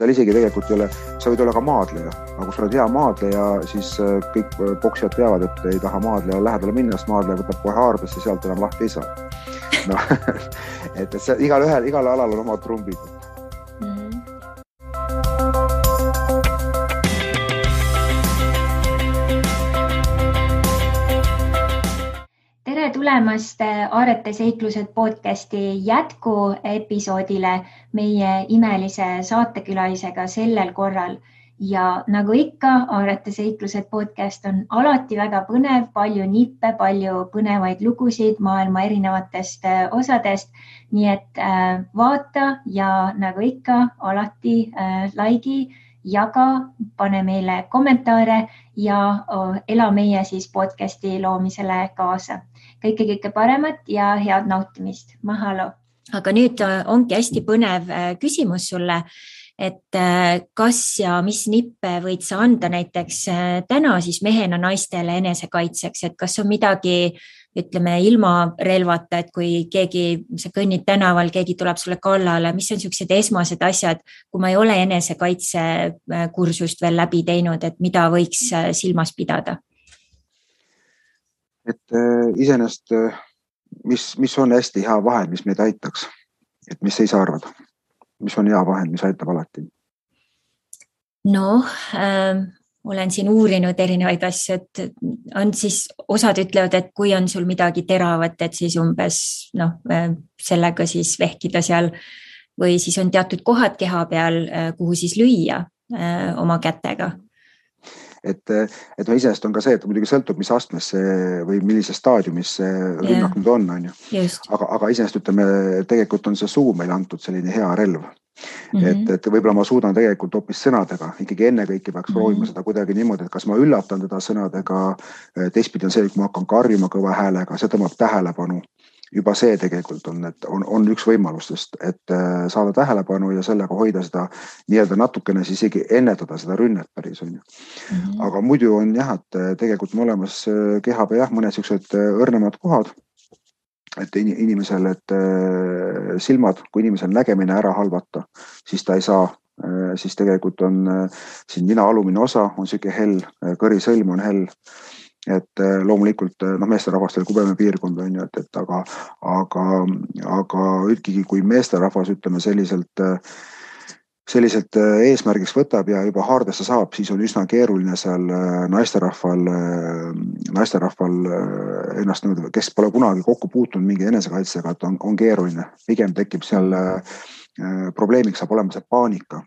seal isegi tegelikult ei ole, sa võid olla ka maadleja, aga kui sa oled hea maadleja, siis kõik poksijad teavad, et ei taha maadleja lähedale minna, sest maadleja võtab kohe haardesse ja sealt enam lahti ei saa. No, et see, igal alal on omad trumbid. Tere tulemast Aarete seiklused podcasti jätkuepisoodile meie imelise saatekülalisega sellel korral. Ja nagu ikka, Aarete seiklused podcast on alati väga põnev, palju nippe, palju põnevaid lugusid maailma erinevatest osadest. Nii et vaata ja nagu ikka, alati laigi, jaga, pane meile kommentaare ja ela meie siis podcasti loomisele kaasa. Kõike paremat ja head nautimist. Mahalo! Aga nüüd ongi hästi põnev küsimus sulle, et kas ja mis nippe võid sa anda näiteks täna siis mehena naistele enesekaitseks, et kas on midagi, ütleme, ilma relvata, et kui sa kõnnid tänaval, keegi tuleb sulle kallale, mis on sellised esmased asjad, kui ma ei ole enesekaitsekursust veel läbi teinud, et mida võiks silmas pidada? Et iseenesest, mis on hästi hea vahend, mis meid aitaks, et mis ei saa arvada, mis on hea vahend, mis aitab alati? No, olen siin uurinud erinevaid asju, et on siis, osad ütlevad, et kui on sul midagi teravat, et siis umbes sellega siis vehkida seal või siis on teatud kohad keha peal, kuhu siis lüüa oma kätega. Et iseenesest on ka see, et muidugi sõltub, mis astmes või millises staadiumis see rünnak nüüd on ju. Aga iseenesest ütleme, tegelikult on see suu meil antud selline hea relv. Et võib-olla ma suudan tegelikult hoopis sõnadega, ikkagi enne kõiki peaks proovima seda kuidagi niimoodi, et kas ma üllatan teda sõnadega, teistpidi on see, kui ma hakkan karjuma kõva häälega, see tõmbab tähelepanu. Juba see tegelikult on üks võimalustest, et saada tähelepanu ja sellega hoida seda nii-öelda natukene siis isegi ennetada seda rünnet päris on ju. Aga muidu on jah, et tegelikult on olemas keha peal mõned sellised õrnemad kohad, et inimesel, et silmad, kui inimesel nägemine ära halvata, siis ta ei saa, siis tegelikult on siin nina alumine osa, on selline hell, kõrisõlm on hell. Et loomulikult meesterahvastel kubeme piirkond on ju, aga üldkigi kui meesterahvas ütleme selliselt eesmärgiks võtab ja juba haardesse saab, siis on üsna keeruline seal naisterahval ennast, kes pole kunagi kokku puutunud mingi enesekaitsega, et on keeruline. Pigem tekib seal probleemiks saab olema see paanika.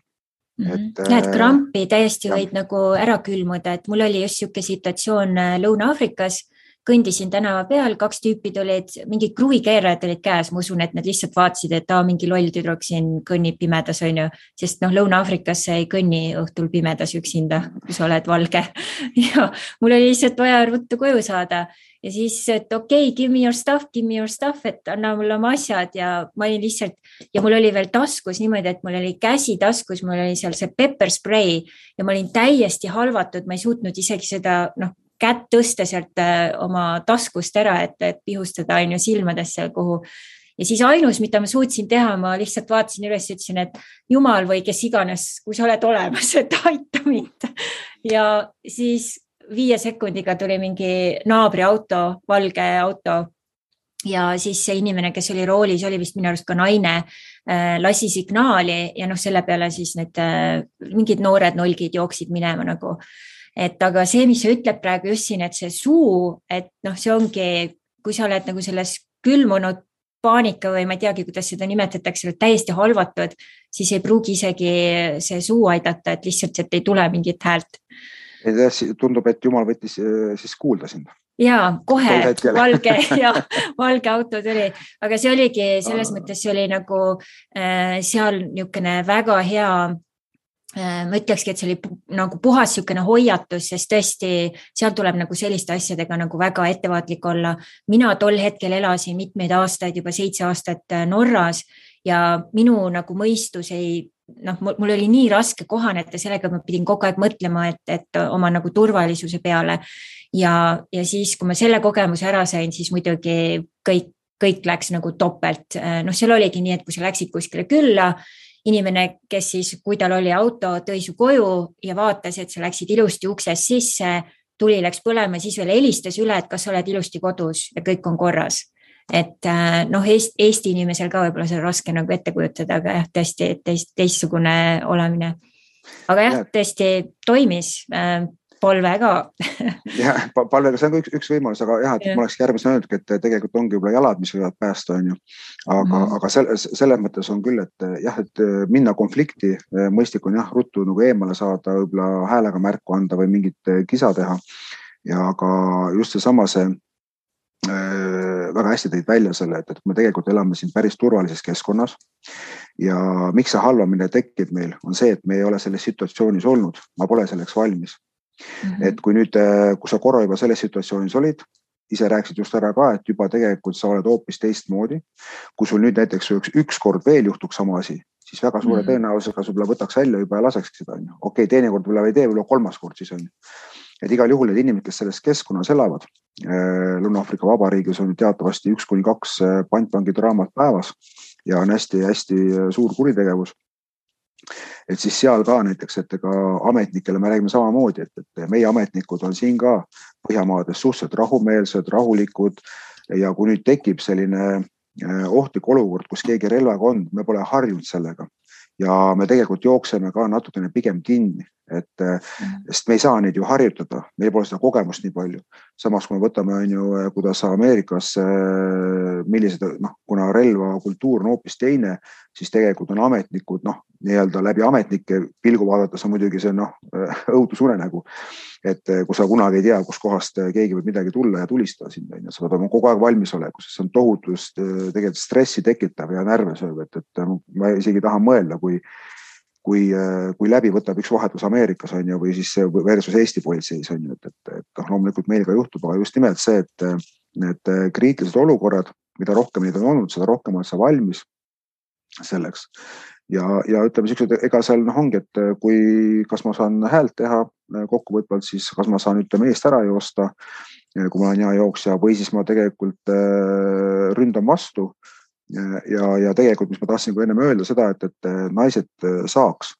Et krampi täiesti võid nagu ära külmuda, et mul oli just siuke situatsioon Lõuna-Aafrikas, kõndisin tänava peal, 2 tüüpi tulid, mingid kruvikeerajad olid käes, ma usun, et nad lihtsalt vaatasid, et mingi loll tüdruk siin kõnnib pimedas, on ju, sest Lõuna-Aafrikas ei kõnni õhtul pimedas üksinda, kui sa oled valge. Ja mul oli lihtsalt vaja ruttu koju saada ja siis, et okei, give me your stuff, et anna mulle oma asjad ja ma olin lihtsalt, ja mul oli veel taskus niimoodi, et mul oli käsi taskus, mul oli seal see pepper spray ja ma olin täiesti halvatud, ma ei suutnud isegi seda, kätt tõsta sealt oma taskust ära, et pihustada on ju silmadesse kuhu. Ja siis ainus, mida ma suutsin teha, ma lihtsalt vaatasin üles ja ütlesin, et jumal või kes iganes, kui sa oled olemas, et aita mind. Ja siis 5 sekundiga tuli mingi naabri auto, valge auto ja siis see inimene, kes oli roolis, oli vist minu arust ka naine, lasi signaali ja selle peale siis need mingid noored nolgid jooksid minema nagu. Et aga see, mis sa ütleb praegu just siin, et see suu, et see ongi, kui sa oled nagu selles külmunud paanika või ma ei teagi, kuidas seda nimetatakse, täiesti halvatud, siis ei pruugi isegi see suu aidata, et lihtsalt et ei tule mingit häält. Tundub, et Jumal võttis siis kuulda sind. Jaa, kohe valge auto tuli, aga see oligi, selles mõttes see oli nagu seal niisugune väga hea, ma ütlekski, et see oli nagu puhas niisugune hoiatus, sest tõesti seal tuleb nagu selliste asjadega nagu väga ettevaatlik olla. Mina tol hetkel elasin mitmeid aastaid, juba 7 aastat Norras ja minu nagu mõistus mul oli nii raske kohaneda sellega, ma pidin kogu aeg mõtlema, et oma nagu turvalisuse peale ja siis, kui ma selle kogemuse ära sain, siis muidugi kõik läks nagu topelt. Seal oligi nii, et kui sa läksid kuskile külla inimene, kes siis, kui tal oli auto, tõi su koju ja vaatas, et sa läksid ilusti uksest sisse, tuli läks põlema, siis veel helistas üle, et kas sa oled ilusti kodus ja kõik on korras. Et noh, Eesti inimesel ka võib-olla see on raske nagu ette kujutada, aga jah, tõesti teistsugune olemine. Aga jah, tõesti toimis palve ka. jah, palvega see on üks võimalus, aga jah, et ma oleks järgmisena öelnud, et tegelikult ongi võib-olla jalad, mis võivad päästa, on ju. Aga selles mõttes on küll, et jah, et minna konflikti, mõistlik on jah, ruttu nagu eemale saada, võib-olla häälega märku anda või mingit kisa teha. Ja aga just seesama see väga hästi tõid välja selle, et me tegelikult elame siin päris turvalises keskkonnas ja miks see halvamine tekib meil, on see, et me ei ole selles situatsioonis olnud, ma pole selleks valmis. Et kui nüüd, kui sa korra juba selles situatsioonis olid, ise rääkisid just ära ka, et juba tegelikult sa oled hoopis teistmoodi. Kui sul nüüd näiteks üks kord veel juhtuks sama asi, siis väga suure tõenäosusega võib-olla võtaks välja juba ja laseks seda. Okei, teine kord võib-olla ei tee, võib-olla kolmas kord siis on. Et igal juhul need inimesed, kes selles keskkonnas elavad, Lõuna-Aafrika Vabariigis on teatavasti 1-2 pantvangidraamat päevas ja on hästi suur kuritegevus. Et siis seal ka näiteks, et ka ametnikele me räägime samamoodi, et meie ametnikud on siin ka Põhjamaades suhteliselt rahumeelsed, rahulikud ja kui nüüd tekib selline ohtlik olukord, kus keegi relvaga on, me pole harjunud sellega ja me tegelikult jookseme ka natukene pigem kinni, sest me ei saa neid ju harjutada, meil pole seda kogemust nii palju. Samas kui me võtame, kuidas Ameerikas, millised, kuna relva kultuur on hoopis teine, siis tegelikult on ametnikud, nii-öelda läbi ametnike pilgu vaadates on muidugi see õudusunenägu, et kui sa kunagi ei tea, kus kohast keegi võib midagi tulla ja tulistada sind, sa pead olema kogu aeg valmisoleku, sest see on tohutust tegelikult stressi tekitav ja närve sööv, et ma isegi tahan mõelda, kui läbi võtab üks vahetus Ameerikas on ju, või siis versus Eesti politseis on ju, et loomulikult meil ka juhtub, aga just nimelt see, et need kriitilised olukorrad, mida rohkem neid on olnud, seda rohkem on sa valmis selleks. Ja ütleme siuksed, ega seal ongi, et kas ma saan häält teha kokkuvõtvalt, siis kas ma saan eest ära joosta, kui ma olen hea jooksja, või siis ma tegelikult ründan vastu. Ja tegelikult, mis ma tahtsin enne öelda seda, et naised saaks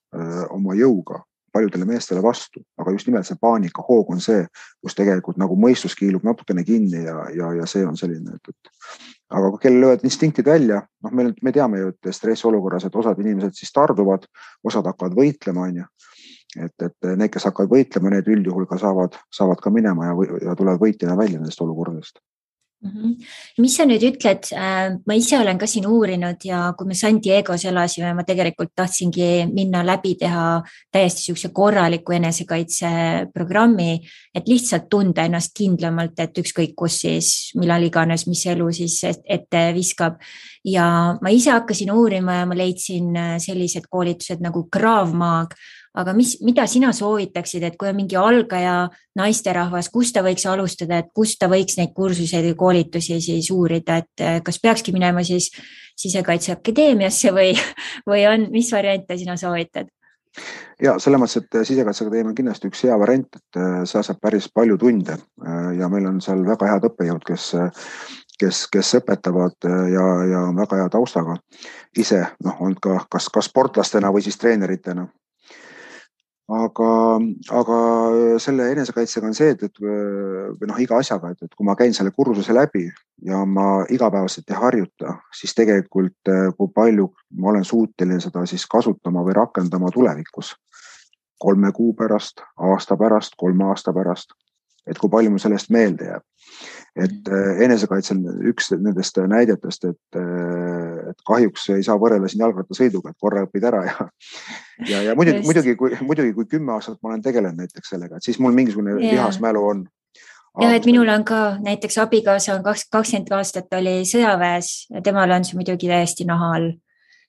oma jõuga paljudele meestele vastu, aga just nimelt see paanika hoog on see, kus tegelikult nagu mõistus kiilub natukene kinni ja see on selline, aga kui kellel löövad instinktid välja, me teame ju, et stressiolukorras, et osad inimesed siis tarduvad, osad hakkavad võitlema, on ju. Et need, kes hakkavad võitlema, need üldjuhul ka saavad ka minema ja tulevad võitjana välja nendest olukordadest. Mis sa nüüd ütled, ma ise olen ka siin uurinud ja kui me San Diegos elasime, ma tegelikult tahtsingi minna läbi teha täiesti siukse korraliku enesekaitseprogrammi, et lihtsalt tunda ennast kindlamalt, et ükskõik kus siis, millal iganes, mis elu siis ette viskab. Ja ma ise hakkasin uurima ja ma leidsin sellised koolitused nagu Krav Maga. Aga mida sina soovitaksid, et kui on mingi algaja naisterahvas, kus ta võiks alustada, et kus ta võiks neid kursuseid või koolitusi siis uurida, et kas peakski minema siis Sisekaitseakadeemiasse või on, mis variante sina soovitad? Ja selles mõttes, et Sisekaitseakadeemia on kindlasti üks hea variant, et sa saab päris palju tunde ja meil on seal väga head õppejõud, kes õpetavad ja on väga hea taustaga ise, on ka kas sportlastena või siis treeneritena. Aga selle enesekaitsega on see, et iga asjaga, et kui ma käin selle kursuse läbi ja ma igapäevaselt ei harjuta, siis tegelikult kui palju ma olen suuteline seda siis kasutama või rakendama tulevikus 3 kuu pärast, aasta pärast, 3 aasta pärast, et kui palju mul sellest meelde jääb. Et enesekaitsel üks nendest näidetest, et kahjuks ei saa võrrelda siin jalgrattasõiduga, et korra õpid ära ja muidugi kui 10 aastat ma olen tegelenud näiteks sellega, et siis mul mingisugune lihasmälu on. Ja, et minul on ka näiteks abikaasa on 20 aastat oli sõjaväes ja temal on see muidugi täiesti naha all,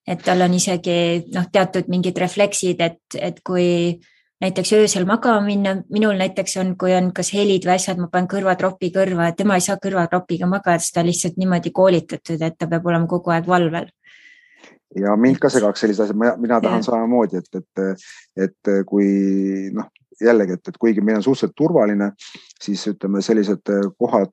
et tal on isegi teatud mingid refleksid, et kui näiteks öösel magama minna, minul näiteks on, kui on kas helid või asjad, ma panen kõrvatropi kõrva, et tema ei saa kõrvatropiga magada, sest ta lihtsalt niimoodi koolitatud, et ta peab olema kogu aeg valvel. Ja mind ka segaks sellised asjad, mina tahan samamoodi, et kui jällegi, et kuigi meil on suhteliselt turvaline, siis ütleme sellised kohad,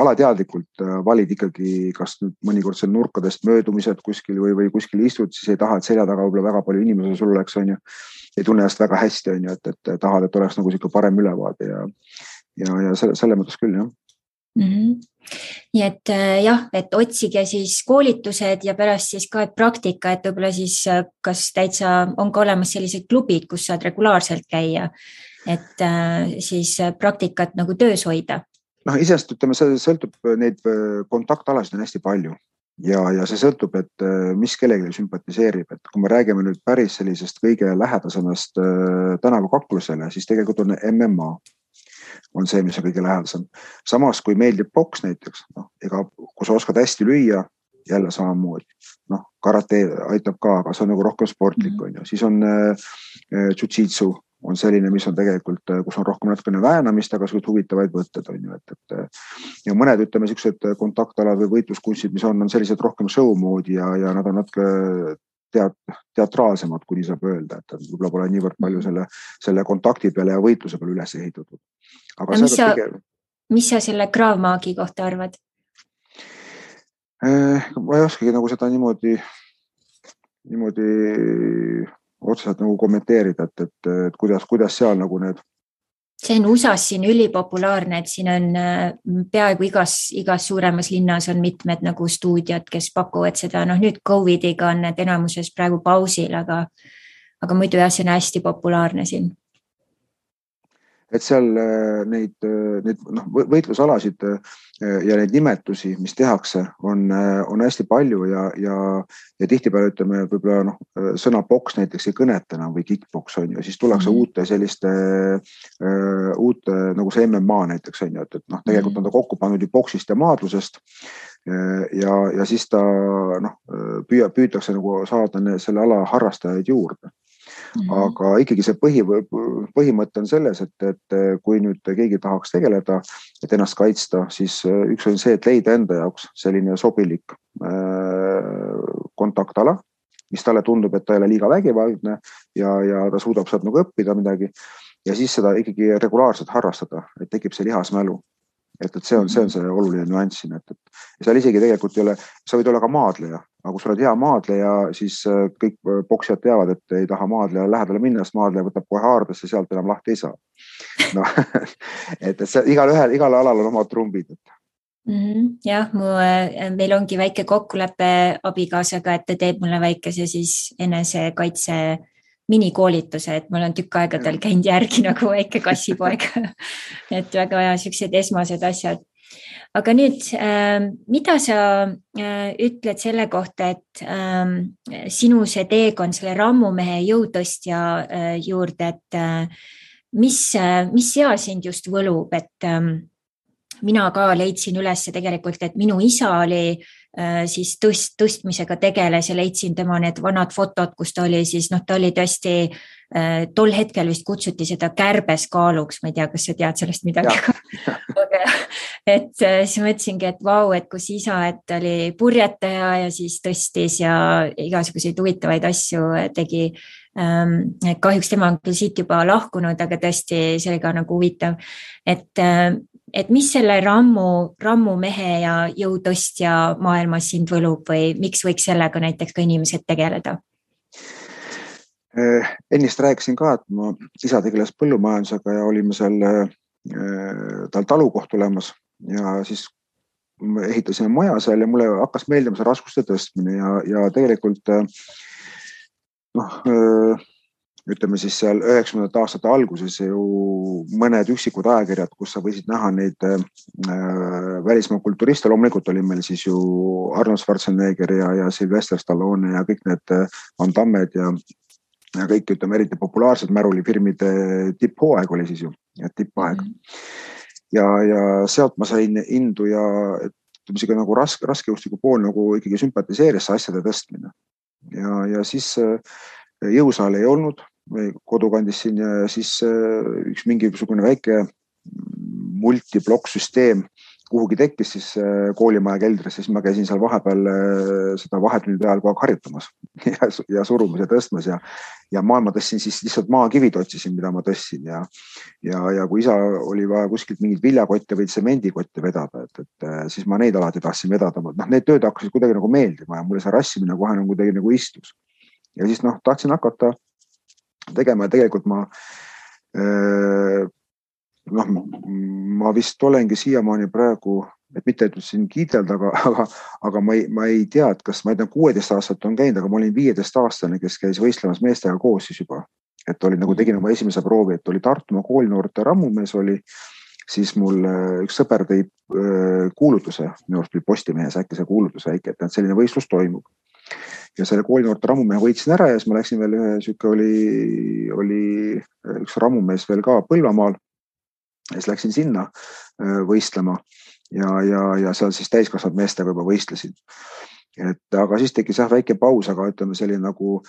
alateadlikult valid ikkagi kas nüüd mõnikord seal nurkadest möödumised kuskil või kuskil istud, siis ei taha, et selja taga võib-olla väga palju inimesi sul oleks, on ju. Ei tunne ennast väga hästi, on ju, et tahad, et oleks nagu siuke parem ülevaade ja selle mõttes küll, jah. Nii et jah, et otsige siis koolitused ja pärast siis ka praktika, et võib-olla siis kas täitsa on ka olemas sellised klubid, kus saad regulaarselt käia, et siis praktikat nagu töös hoida. Isest ütleme, see sõltub, neid kontaktalasid on hästi palju ja see sõltub, et mis kellelegi sümpatiseerib, et kui me räägime nüüd päris sellisest kõige lähedasemast tänavakaklusele, siis tegelikult on MMA. On see, mis on kõige lähedasem. Samas, kui meeldib boks näiteks, kui sa oskad hästi lüüa, jälle samamoodi. Karate aitab ka, aga see on nagu rohkem sportlik, on ju. Siis on jiu-jitsu, on selline, mis on tegelikult, kus on rohkem natukene väänamist, aga suht huvitavaid võtted, on ju. Ja mõned, ütleme, sellised kontaktalad või võitluskunstid, mis on sellised rohkem show moodi ja nad on natuke teatraalsemad, kuni saab öelda, et võib-olla pole niivõrd palju selle kontakti peale ja võitluse peale üles ehitatud. Aga mis sa selle Krav Maagi kohta arvad? Ma ei oskagi nagu seda niimoodi otseselt nagu kommenteerida, et kuidas seal nagu need. See on USAs siin ülipopulaarne, et siin on peaaegu igas suuremas linnas on mitmed nagu stuudiod, kes pakuvad seda. Nüüd COVIDiga on need enamuses praegu pausil, aga muidu jah, see on hästi populaarne siin. Et seal neid võitlusalasid ja neid nimetusi, mis tehakse, on hästi palju ja tihtipeale ütleme, võib-olla sõna boks näiteks ei kõneta enam või kickboks on ju, siis tullakse uute nagu see MMA näiteks on ju, et tegelikult on ta kokku pannud ju boksist ja maadlusest ja siis ta püütakse nagu saada selle ala harrastajaid juurde. Aga ikkagi see põhimõte on selles, et kui nüüd keegi tahaks tegeleda, et ennast kaitsta, siis üks on see, et leida enda jaoks selline sobilik kontaktala, mis talle tundub, et ta ei ole liiga vägivaldne ja ta suudab sealt nagu õppida midagi ja siis seda ikkagi regulaarselt harrastada, et tekib see lihasmälu. Et see on see oluline nüanss siin, et seal isegi tegelikult ei ole, sa võid olla ka maadleja, aga kui sa oled hea maadleja, siis kõik boksijad teavad, et ei taha maadleja lähedale minna, sest maadleja võtab kohe haardesse, sealt enam lahti ei saa. Et igal alal on omad trumbid. Jah, meil ongi väike kokkulepe abikaasaga, et ta teeb mulle väikese siis enesekaitse minikoolituse, et mul on tükk aega tal käinud järgi nagu väike kassipoeg. Et väga vaja sellised esmased asjad. Aga nüüd, mida sa ütled selle kohta, et sinu see teekond selle rammumehe jõutõstja juurde, et mis seal sind just võlub, et mina ka leidsin üles tegelikult, et minu isa oli siis tõstmisega tegeles ja leidsin tema need vanad fotod, kus ta oli siis, ta oli tõesti, tol hetkel vist kutsuti seda kärbeskaaluks, ma ei tea, kas sa tead sellest midagi. Et siis mõtlesingi, et vau, et kus isa, et oli purjetaja ja siis tõstis ja igasuguseid huvitavaid asju tegi. Kahjuks tema on küll siit juba lahkunud, aga tõesti see oli ka nagu huvitav, et mis selle rammumehe ja jõutõstja maailmas sind võlub või miks võiks sellega näiteks ka inimesed tegeleda? Ennist rääkisin ka, et ma isa tegeles põllumajandusega ja olime seal tal talukoht olemas ja siis ehitasime maja seal ja mulle hakkas meeldima see raskuste tõstmine ja tegelikult ütleme siis seal 90. aastate alguses ju mõned üksikud ajakirjad, kus sa võisid näha neid välismaa kulturiste, loomulikult oli meil siis ju Arnold Schwarzenegger ja Sylvester Stallone ja kõik need Van Dammed ja kõik, ütleme, eriti populaarsed märulifirmide tipphooaeg oli siis ju, tippaeg. Ja sealt ma sain indu ja ütleme, nagu raskejõustiku pool nagu ikkagi sümpatiseeris asjade tõstmine. Ja siis jõusaal ei olnud kodukandis siin ja siis üks mingisugune väike multiblokk süsteem, kuhugi tekkis siis koolimaja keldris, siis ma käisin seal vahepeal seda vahetunnide ajal kogu aeg harjutamas ja surumas ja tõstmas ja maailma tõstsin siis lihtsalt maakivid otsisin, mida ma tõstsin ja kui isa oli vaja kuskilt mingit viljakotte või tsemendikotte vedada, et siis ma neid alati tahtsin vedada. Need tööd hakkasid kuidagi nagu meeldima ja mulle see rassimine kohe nagu kuidagi nagu istus. Ja siis tahtsin hakata tegema ja tegelikult ma vist olengi siiamaani praegu, et mitte et siin kiidelda, aga ma ei tea, et kas ma 16 aastat on käinud, aga ma olin 15-aastane, kes käis võistlemas meestega koos siis juba. Et oli nagu tegin oma esimese proovi, et oli Tartumaa koolinoorte rammumees oli, siis mul üks sõber tõi kuulutuse, minu arust oli Postimehes äkki see kuulutus väike, et selline võistlus toimub. Ja selle koolinoorte rammumehe võitsin ära ja siis ma läksin veel oli üks rammumees veel ka Põlvamaal. Ja siis läksin sinna võistlema ja seal siis täiskasvanud meestega juba võistlesin. Aga siis tekkis väike paus, aga ütleme selline nagu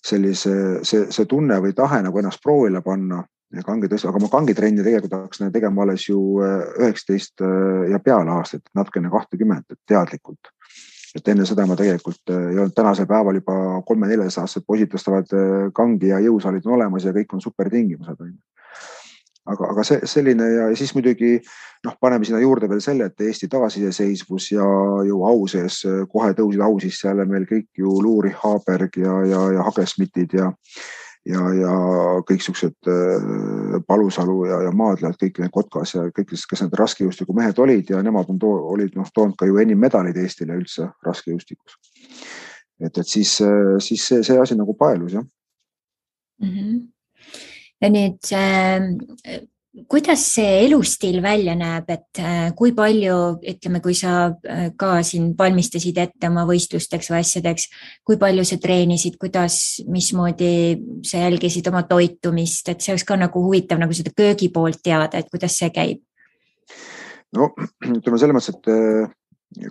see tunne või tahe nagu ennast proovile panna. Aga ma kangitrenni tegelikult hakkasin tegema alles ju 19 ja peale aastat, natukene 20 teadlikult. Et enne seda ma tegelikult ei olnud tänasel päeval juba 3-4 aastased poisid tõstavad kangi ja jõusaalid on olemas ja kõik on super tingimused. Aga selline ja siis muidugi paneme sinna juurde veel selle, et Eesti taasiseseisvus ja ju au sees kohe tõusid au sisse jälle meil kõik ju Luuri, Haaberg ja Hagesmitid ja kõik siuksed Palusalu ja Maadlad, kõik need Kotkas ja kõik, kes need raskejõustiku mehed olid ja nemad olid toonud ka ju enim medalid Eestile üldse raskejõustikus. Et siis see asi nagu paelus, jah. Mm-hmm. Ja nüüd, kuidas see elustiil välja näeb, et kui palju, ütleme, kui sa ka siin valmistasid ette oma võistlusteks või asjadeks, kui palju sa treenisid, mismoodi sa jälgisid oma toitumist, et see oleks ka nagu huvitav nagu seda köögi poolt teada, et kuidas see käib? No, ütleme selles mõttes, et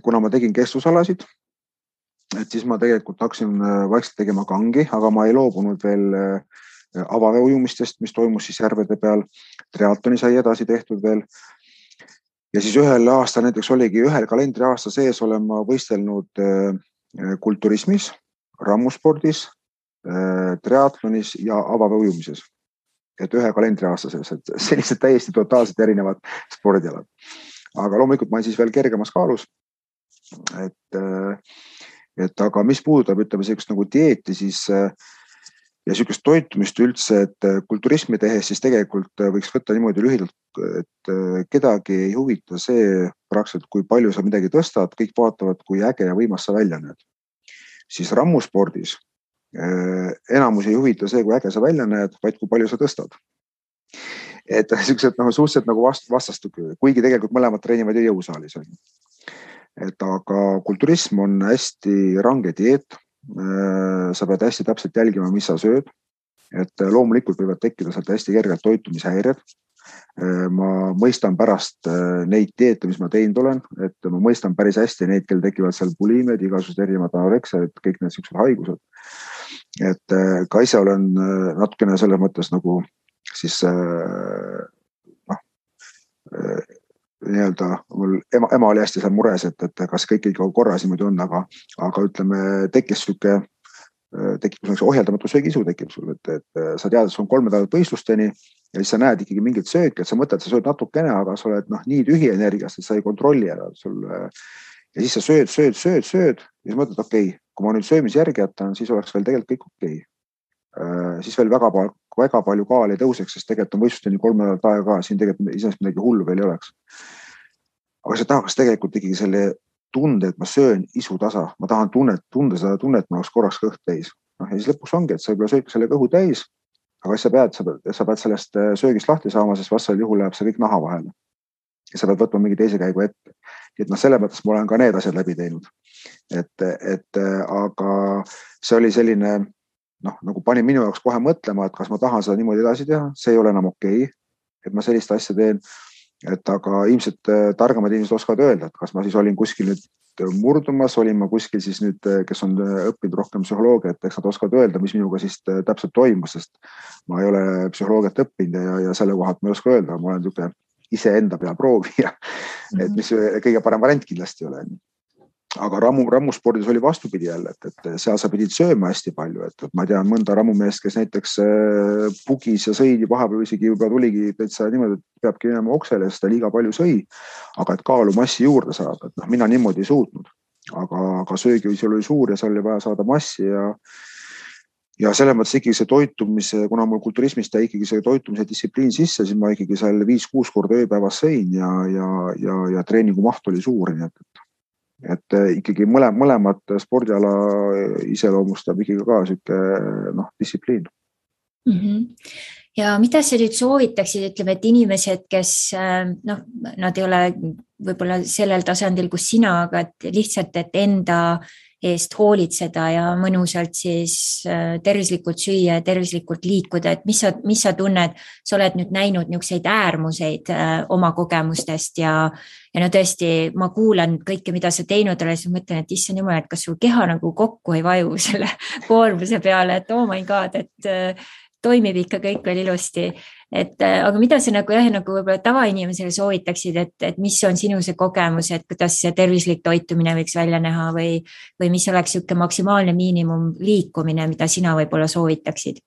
kuna ma tegin kestvusalasid, et siis ma tegelikult hakkasin vaikselt tegema kangi, aga ma ei loobunud veel avaveeujumistest, mis toimus siis järvede peal. Triatloni sai edasi tehtud veel. Ja siis ühel aastal, näiteks oligi ühel kalendriaasta sees olen ma võistelnud kulturismis, rammuspordis, triatlonis ja avaveeujumises. Et ühe kalendriaasta sees, et sellised täiesti totaalselt erinevad spordialad. Aga loomulikult ma olen siis veel kergemas kaalus. Et aga mis puudutab, ütleme sellist nagu dieeti, siis ja niisugust toitumist üldse, et kulturismi tehes siis tegelikult võiks võtta niimoodi lühidalt, et kedagi ei huvita see praktiliselt, kui palju sa midagi tõstad, kõik vaatavad, kui äge ja võimas sa välja näed. Siis rammuspordis enamus ei huvita see, kui äge sa välja näed, vaid kui palju sa tõstad. Et niisugused suhteliselt nagu vastastu, kuigi tegelikult mõlemad treenivad ju jõusaalis. Et aga kulturism on hästi range dieet. Sa pead hästi täpselt jälgima, mis sa sööd, et loomulikult võivad tekkida sealt hästi kergelt toitumishäired. Ma mõistan pärast neid dieete, mis ma teinud olen, et ma mõistan päris hästi neid, kel tekivad seal bulimed, igasugused erinevad anoreksiad, kõik need siuksed haigused. Et ka ise olen natukene selles mõttes nagu siis nii-öelda mul ema oli hästi seal mures, et kas kõik ikka korras niimoodi on, aga ütleme, tekkis ohjeldamatu söögiisu tekib sul, et sa tead, et sul on 3 nädalat võistlusteni ja siis sa näed ikkagi mingit sööki, et sa mõtled, sa sööd natukene, aga sa oled nii tühi energiast, et sa ei kontrolli ära sul. Ja siis sa sööd ja siis mõtled, okei, kui ma nüüd söömise järgi jätan, siis oleks veel tegelikult kõik okei. Siis veel väga palju kaal ei tõuseks, sest tegelikult on võistlusteni 3 nädalat aega ka, siin tegelikult iseenesest midagi hullu veel ei oleks. Aga sa tahaks tegelikult ikkagi selle tunde, et ma söön isu tasa, ma tahan tunda seda tunnet, ma oleks korraks kõht täis. Ja siis lõpuks ongi, et sa võib-olla sööd selle kõhu täis, aga sa pead sellest söögist lahti saama, sest vastasel juhul läheb see kõik naha vahele. Ja sa pead võtma mingi teise käigu ette. Et selle mõttes ma olen ka need asjad läbi teinud. Aga see oli selline, nagu pani minu jaoks kohe mõtlema, et kas ma tahan seda niimoodi edasi teha, see ei ole enam okei, et ma sellist asja teen. Aga ilmselt targemad inimesed oskavad öelda, et kas ma siis olin kuskil nüüd murdumas, olin ma kuskil siis nüüd, kes on õppinud rohkem psühholoogia, et eks nad oskavad öelda, mis minuga siis täpselt toimus, sest ma ei ole psühholoogiat õppinud ja selle kohalt ma ei oska öelda, ma olen niisugune iseenda peal proovida, et mis kõige parem variant kindlasti ei ole. Aga rammuspordis oli vastupidi jälle, et seal sa pidid sööma hästi palju, et ma tean mõnda rammumeest, kes näiteks pugis ja sõidi vahepeal isegi juba tuligi täitsa niimoodi, et peabki minema oksele, sest ta liiga palju sõi, aga et kaalu massi juurde saada, et mina niimoodi ei suutnud, aga söögiviis oli suur ja seal oli vaja saada massi ja selles mõttes ikkagi see toitumise, kuna mul kulturismist jäi ikkagi see toitumise distsipliin sisse, siis ma ikkagi seal 5-6 korda ööpäevas sõin ja treeningu maht oli suur, nii et ikkagi mõlemad spordiala iseloomustab ikkagi ka siuke distsipliin. Ja mida sa nüüd soovitaksid, ütleme, et inimesed, kes nad ei ole võib-olla sellel tasandil, kus sina, aga et lihtsalt, et enda eest hoolitseda ja mõnusalt siis tervislikult süüa ja tervislikult liikuda, et mis sa tunned, sa oled nüüd näinud niisuguseid äärmuseid oma kogemustest ja tõesti, ma kuulan kõike, mida sa teinud oled, siis mõtlen, et issand jumal, et kas sul keha nagu kokku ei vaju selle koormuse peale, et oh my god, et toimib ikka kõik veel ilusti. Aga mida sa nagu võib-olla tavainimesele soovitaksid, et mis on sinu see kogemus, et kuidas see tervislik toitumine võiks välja näha või mis oleks siuke maksimaalne miinimum liikumine, mida sina võib-olla soovitaksid?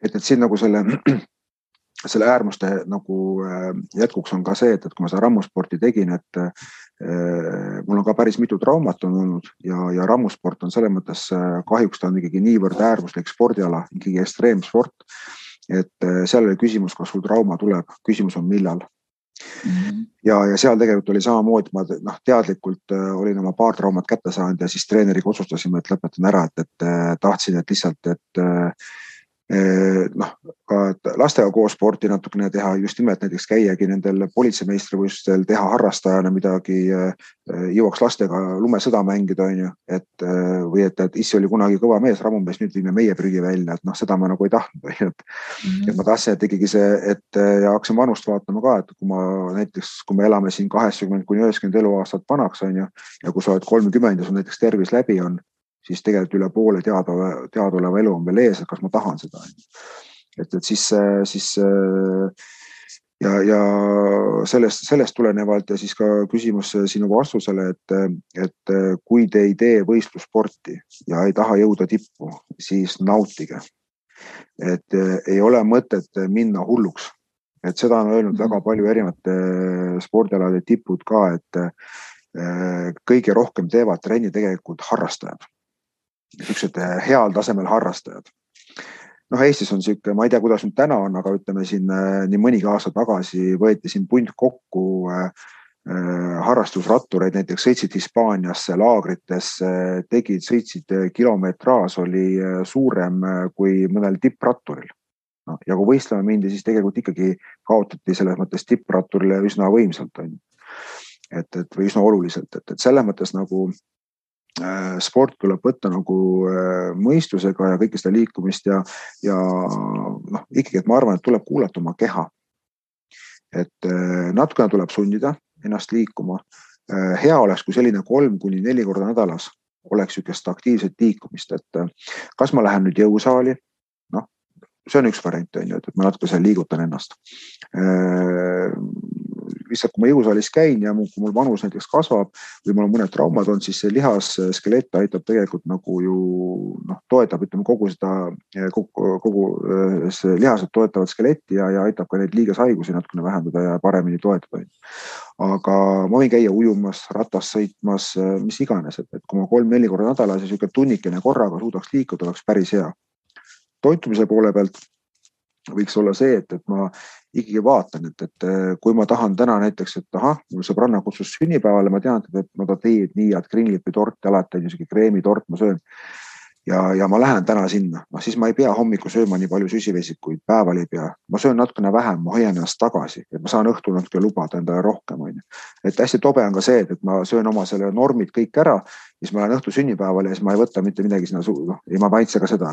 Et siin nagu selle äärmuste nagu jätkuks on ka see, et kui ma seda rammusporti tegin, et mul on ka päris mitu traumat on olnud ja rammusport on selles mõttes kahjuks ta on ikkagi niivõrd äärmuslik spordiala, ikkagi ekstreemsport, et seal oli küsimus, kas sul trauma tuleb, küsimus on millal. Ja seal tegelikult oli samamoodi, ma teadlikult olin oma paar traumat kätte saanud ja siis treeneriga otsustasime, et lõpetan ära, et tahtsin, et lihtsalt, et ka lastega koos sporti natukene teha, just nimelt näiteks käiagi nendel politseimeistrivõistlustel, teha harrastajana midagi, jõuaks lastega lumesõda mängida, või et issi oli kunagi kõva mees, rammumees, nüüd viime meie prügi välja, et seda ma nagu ei tahtnud, et ma tahtsin, et ikkagi see, ja hakkasin vanust vaatama ka, et kui me elame siin 80-90 eluaastat vanaks, ja kui sa oled 30 ja sul näiteks tervis läbi on, siis tegelikult üle poole teadaoleva elu on veel ees, et kas ma tahan seda. Et siis ja sellest tulenevalt ja siis ka küsimus sinu vastusele, et kui te ei tee võistlussporti ja ei taha jõuda tippu, siis nautige. Et ei ole mõtet minna hulluks. Et seda on öelnud väga palju erinevate spordialade tipud ka, et kõige rohkem teevad trenni tegelikult harrastajad. Niisugused heal tasemel harrastajad. Eestis on siuke, ma ei tea, kuidas nüüd täna on, aga ütleme siin nii mõnigi aasta tagasi võeti siin punt kokku harrastusrattureid, näiteks sõitsid Hispaaniasse, laagritesse, sõitsid kilometraaž oli suurem kui mõnel tippratturil. Ja kui võistlema mindi, siis tegelikult ikkagi kaotati selles mõttes tippratturile üsna võimsalt. Või üsna oluliselt, et selles mõttes nagu sport tuleb võtta nagu mõistusega ja kõike seda liikumist ja ikkagi, et ma arvan, et tuleb kuulata oma keha. Et natukene tuleb sundida ennast liikuma. Hea oleks, kui selline 3-4 korda nädalas oleks ükest aktiivset liikumist, et kas ma lähen nüüd jõusaali, see on üks variant, et ma natuke seal liigutan ennast. Lihtsalt, kui ma jõusaalis käin ja kui mul vanus näiteks kasvab või mul on mõned traumad on, siis see lihasskelett aitab tegelikult nagu ju toetab, ütleme kogu lihased toetavad skeletti ja aitab ka neid liigeshaigusi natukene vähendada ja paremini toetada. Aga ma võin käia ujumas, ratas sõitmas, mis iganes, et kui ma 3-4 korda nädalas ja siuke tunnikene korraga suudaks liikuda, oleks päris hea. Toitumise poole pealt võiks olla see, et ma ikkagi vaatan, et kui ma tahan täna näiteks, et mul sõbranna kutsus sünnipäevale, ma tean, et ta teeb nii, et kringlipi torti alati on niisugune kreemitort, ma söön. Ja ma lähen täna sinna, siis ma ei pea hommiku sööma nii palju süsivesikuid, päeval ei pea. Ma söön natukene vähem, ma hoian ennast tagasi, et ma saan õhtul natuke lubada endale rohkem. Et hästi tobe on ka see, et ma söön oma selle normid kõik ära, siis ma lähen õhtu sünnipäevale ja siis ma ei võta mitte midagi sinna ei ma maitse ka seda.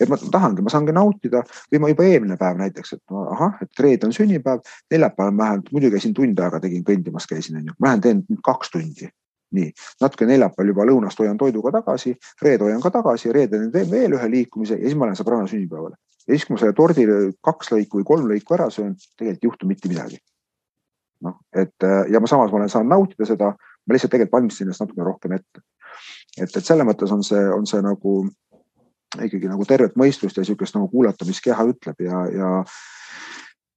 Et ma saangi nautida või ma juba eelmine päev näiteks, et reede on sünnipäev, neljapäeval ma lähen, muidu käisin tund aega tegin kõndimas käisin, ma lähen teen 2 tundi. Nii, natuke neljapäeval juba lõunast hoian toiduga tagasi, reede hoian ka tagasi, reede teen veel ühe liikumise ja siis ma lähen sõbranna sünnipäevale. Ja siis, kui ma selle tordi 2 lõiku või 3 lõiku ära söön, tegelikult ei juhtu mitte midagi. ja samas ma olen saanud nautida seda, ma lihtsalt tegelikult valmistasin ennast natuke rohkem ette. Et selle mõttes on see nagu ikkagi nagu tervet mõistust ja niisugust nagu kuulata, mis keha ütleb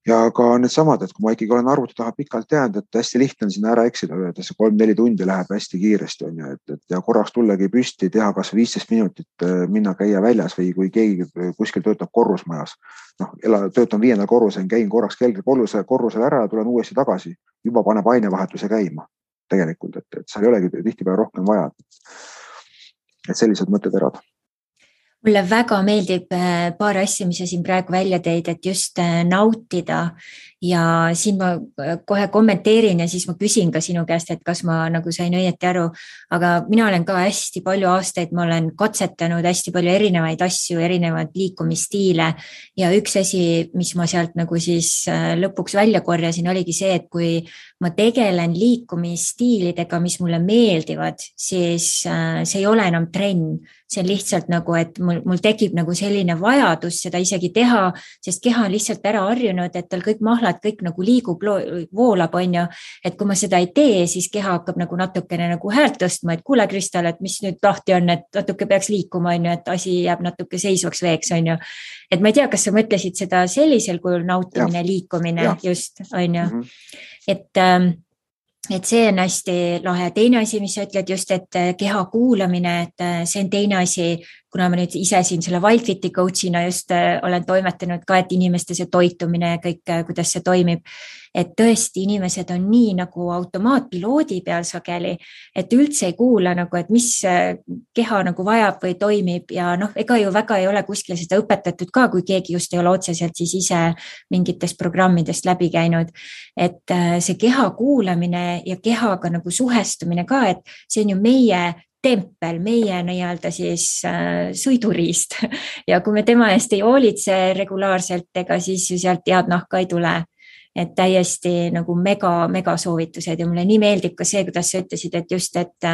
ja ka need samad, et kui ma ikkagi olen arvuti taha pikalt jäänud, et hästi lihtne on sinna ära eksida, et see 3-4 tundi läheb hästi kiiresti on ju, et ja korraks tullagi püsti, teha kas 15 minutit, minna käia väljas või kui keegi kuskil töötab korrusmajas. Töötan 5. korrusel, käin korraks korrusel ära ja tulen uuesti tagasi, juba paneb ainevahetuse käima tegelikult, et seal ei olegi tihtipeale rohkem vaja. Et sellised mõtteterad. Mulle väga meeldib paar asja, mis sa siin praegu välja teid, et just nautida ja siin ma kohe kommenteerin ja siis ma küsin ka sinu käest, et kas ma nagu sain õieti aru, aga mina olen ka hästi palju aastaid, ma olen katsetanud hästi palju erinevaid asju, erinevaid liikumisstiile ja üks asi, mis ma sealt nagu siis lõpuks välja korjasin, oligi see, et kui ma tegelen liikumisstiilidega, mis mulle meeldivad, siis see ei ole enam trenn. See on lihtsalt nagu, et mul tekib nagu selline vajadus seda isegi teha, sest keha on lihtsalt ära harjunud, et tal kõik mahlad, kõik nagu liigub, voolab, on ju. Et kui ma seda ei tee, siis keha hakkab nagu natukene nagu häält tõstma, et kuule Kristal, et mis nüüd lahti on, et natuke peaks liikuma, on ju, et asi jääb natuke seisvaks veeks, on ju. Et ma ei tea, kas sa mõtlesid seda sellisel kujul nautimine, liikumine, just, on ju. Et see on hästi lahe. Teine asi, mis sa ütled just, et keha kuulamine, et see on teine asi, kuna ma nüüd ise siin selle Wildfiti coachina just olen toimetanud ka, et inimeste see toitumine ja kõik, kuidas see toimib, et tõesti inimesed on nii nagu automaatpiloodi peal sageli, et üldse ei kuula nagu, et mis keha nagu vajab või toimib ja ega ju väga ei ole kuskil seda õpetatud ka, kui keegi just ei ole otseselt siis ise mingitest programmidest läbi käinud, et see keha kuulamine ja kehaga nagu suhestumine ka, et see on ju meie tempel, meie nii-öelda siis sõiduriist ja kui me tema eest ei hoolitse regulaarselt, ega siis ju sealt head nahka ei tule. Et täiesti nagu mega soovitused ja mulle nii meeldib ka see, kuidas sa ütlesid, et just, et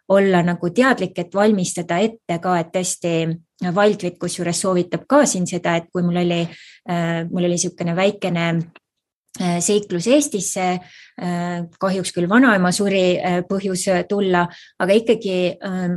olla nagu teadlik, et valmistada ette ka, et tõesti Wildfit kusjuures soovitab ka siin seda, et kui mul oli niisugune väikene seiklus Eestisse, kahjuks küll vanaema suri põhjus tulla, aga ikkagi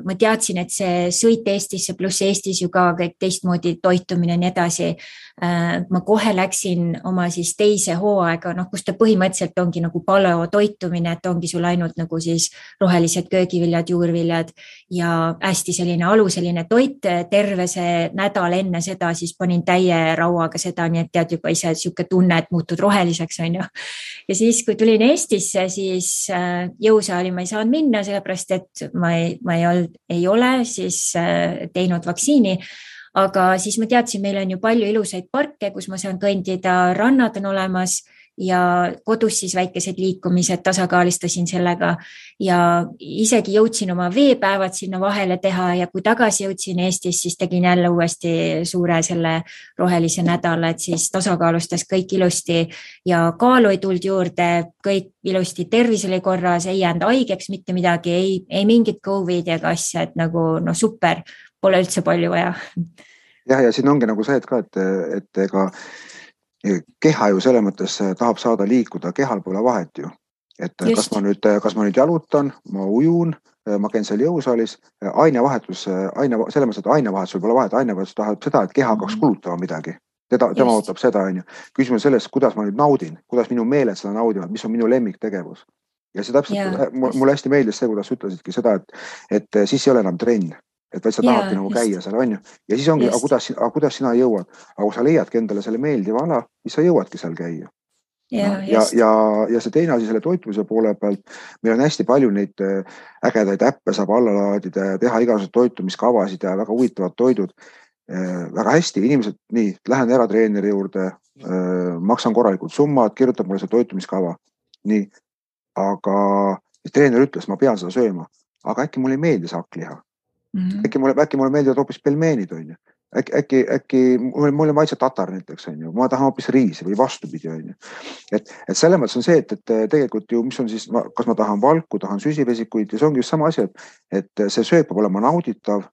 ma teadsin, et see sõit Eestisse pluss Eestis ju ka kõik teistmoodi toitumine ja nii edasi. Ma kohe läksin oma siis teise hooaega, kus ta põhimõtteliselt ongi nagu paleo toitumine, et ongi sul ainult nagu siis rohelised köögiviljad, juurviljad ja hästi selline aluseline toit. Terve see nädal enne seda siis panin täie rauaga seda, nii et tead juba ise siuke tunne, et muutud roheliseks, on ju. Ja siis, kui tulin Eestisse, siis jõusaali ma ei saanud minna, sellepärast, et ma ei ole siis teinud vaktsiini, aga siis ma teadsin, meil on ju palju ilusaid parke, kus ma saan kõndida, rannad on olemas ja kodus siis väikesed liikumised tasakaalistasin sellega ja isegi jõudsin oma veepäevad sinna vahele teha ja kui tagasi jõudsin Eestis, siis tegin jälle uuesti suure selle rohelise nädala, et siis tasakaalustas kõik ilusti ja kaalu ei tulnud juurde, kõik ilusti, tervis oli korras, ei jäänud haigeks mitte midagi, ei mingit COVID ega asja, et nagu super, pole üldse palju vaja. Ja siin ongi nagu see, et ka, et ega keha ju selle mõttes tahab saada liikuda, kehal pole vahet ju. Et kas ma nüüd jalutan, ma ujun, ma käin seal jõusaalis, ainevahetus, selle mõttes, et ainevahetus pole vahet, ainevahetus tahab seda, et keha hakkaks kulutama midagi. Tema ootab seda, on ju. Küsimus selles, kuidas ma nüüd naudin, kuidas minu meeled seda naudivad, mis on minu lemmiktegevus. Ja see täpselt, mulle hästi meeldis see, kuidas ütlesidki seda, et siis ei ole enam trenn. Et vaid sa tahadki nagu käia seal, on ju. Ja siis ongi, aga kuidas sina jõuad? Aga kui sa leiadki endale selle meeldiva ala, siis sa jõuadki seal käia. Ja see teine asi selle toitumise poole pealt, meil on hästi palju neid ägedaid äppe saab alla laadida ja teha igasugused toitumiskavasid ja väga huvitavad toidud. Väga hästi, inimesed, nii, lähen ära treeneri juurde, maksan korralikult summad, kirjutab mulle see toitumiskava. Nii, aga treener ütles, ma pean seda sööma, aga äkki mulle ei meeldi saakliha. Äkki mulle meeldivad hoopis pelmeenid, on ju. Äkki mulle maitse tatar näiteks, on ju. Ma tahan hoopis riisi või vastupidi, on ju. Et selle mõttes on see, et tegelikult ju, mis on siis, kas ma tahan valku, tahan süsivesikuid ja see ongi just sama asi, et see sööp peab olema nauditav,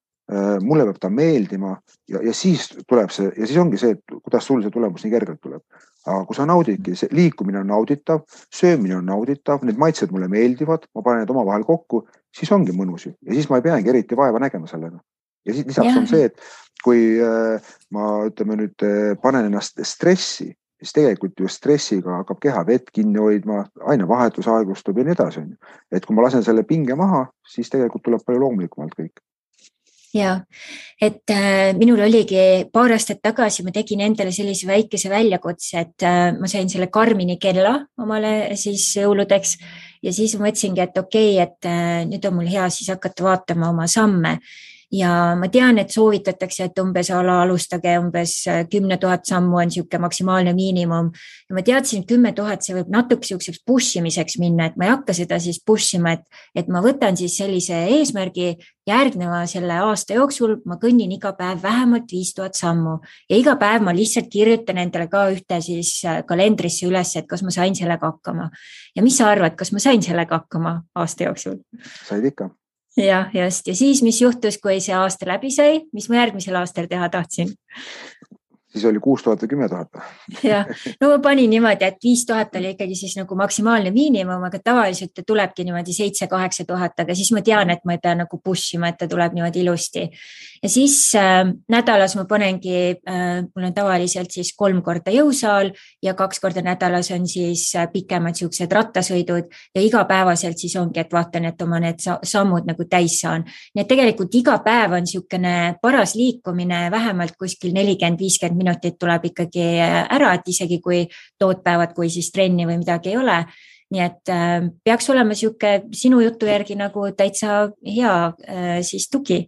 mulle peab ta meeldima ja siis tuleb see, ja siis ongi see, et kuidas sul see tulemus nii kergelt tuleb. aga kui sa naudidki, see liikumine on nauditav, söömine on nauditav, need maitsed mulle meeldivad, ma panen need omavahel kokku, siis ongi mõnus ja siis ma ei peagi eriti vaeva nägema sellega. Ja siis lisaks on see, et kui ma ütleme nüüd panen ennast stressi, siis tegelikult ju stressiga hakkab keha vett kinni hoidma, ainevahetus aeglustub ja nii edasi. Et kui ma lasen selle pinge maha, siis tegelikult tuleb palju loomulikumalt kõik. Ja, et minul oligi paar aastat tagasi, ma tegin endale sellise väikese väljakutse, et ma sain selle Garmini kella omale siis jõuludeks ja siis mõtlesingi, et okei, et nüüd on mul hea siis hakata vaatama oma samme. Ja ma tean, et soovitatakse, et umbes alustage umbes 10 000 sammu on siuke maksimaalne miinimum. Ja ma teadsin, 10 000 see võib natuke siukseks pushimiseks minna, et ma ei hakka seda siis pushima, et ma võtan siis sellise eesmärgi järgneva selle aasta jooksul, ma kõnnin iga päev vähemalt 5000 sammu ja iga päev ma lihtsalt kirjutan endale ka ühte siis kalendrisse üles, et kas ma sain sellega hakkama. Ja mis sa arvad, kas ma sain sellega hakkama aasta jooksul? Said ikka. Ja, just. Ja siis, mis juhtus, kui see aasta läbi sai, mis ma järgmisel aastal teha tahtsin? Siis oli 6000 või 10 000. Ja, no ma panin niimoodi, et 5000 oli ikkagi siis nagu maksimaalne miinimum, aga tavaliselt tulebki niimoodi 7-8 000, aga siis ma tean, et ma ei pea nagu pushima, et ta tuleb niimoodi ilusti. Ja siis nädalas ma panengi, mul on tavaliselt siis 3 korda jõusaal ja 2 korda nädalas on siis pikemad siuksed rattasõidud ja igapäevaselt siis ongi, et vaatan, et oma need sammud nagu täis saan. Nii et tegelikult iga päev on siukene paras liikumine, vähemalt kuskil 40-50 minutit tuleb ikkagi ära, et isegi kui tootpäevad, kui siis trenni või midagi ei ole. Nii et peaks olema siuke sinu jutu järgi nagu täitsa hea siis tugi.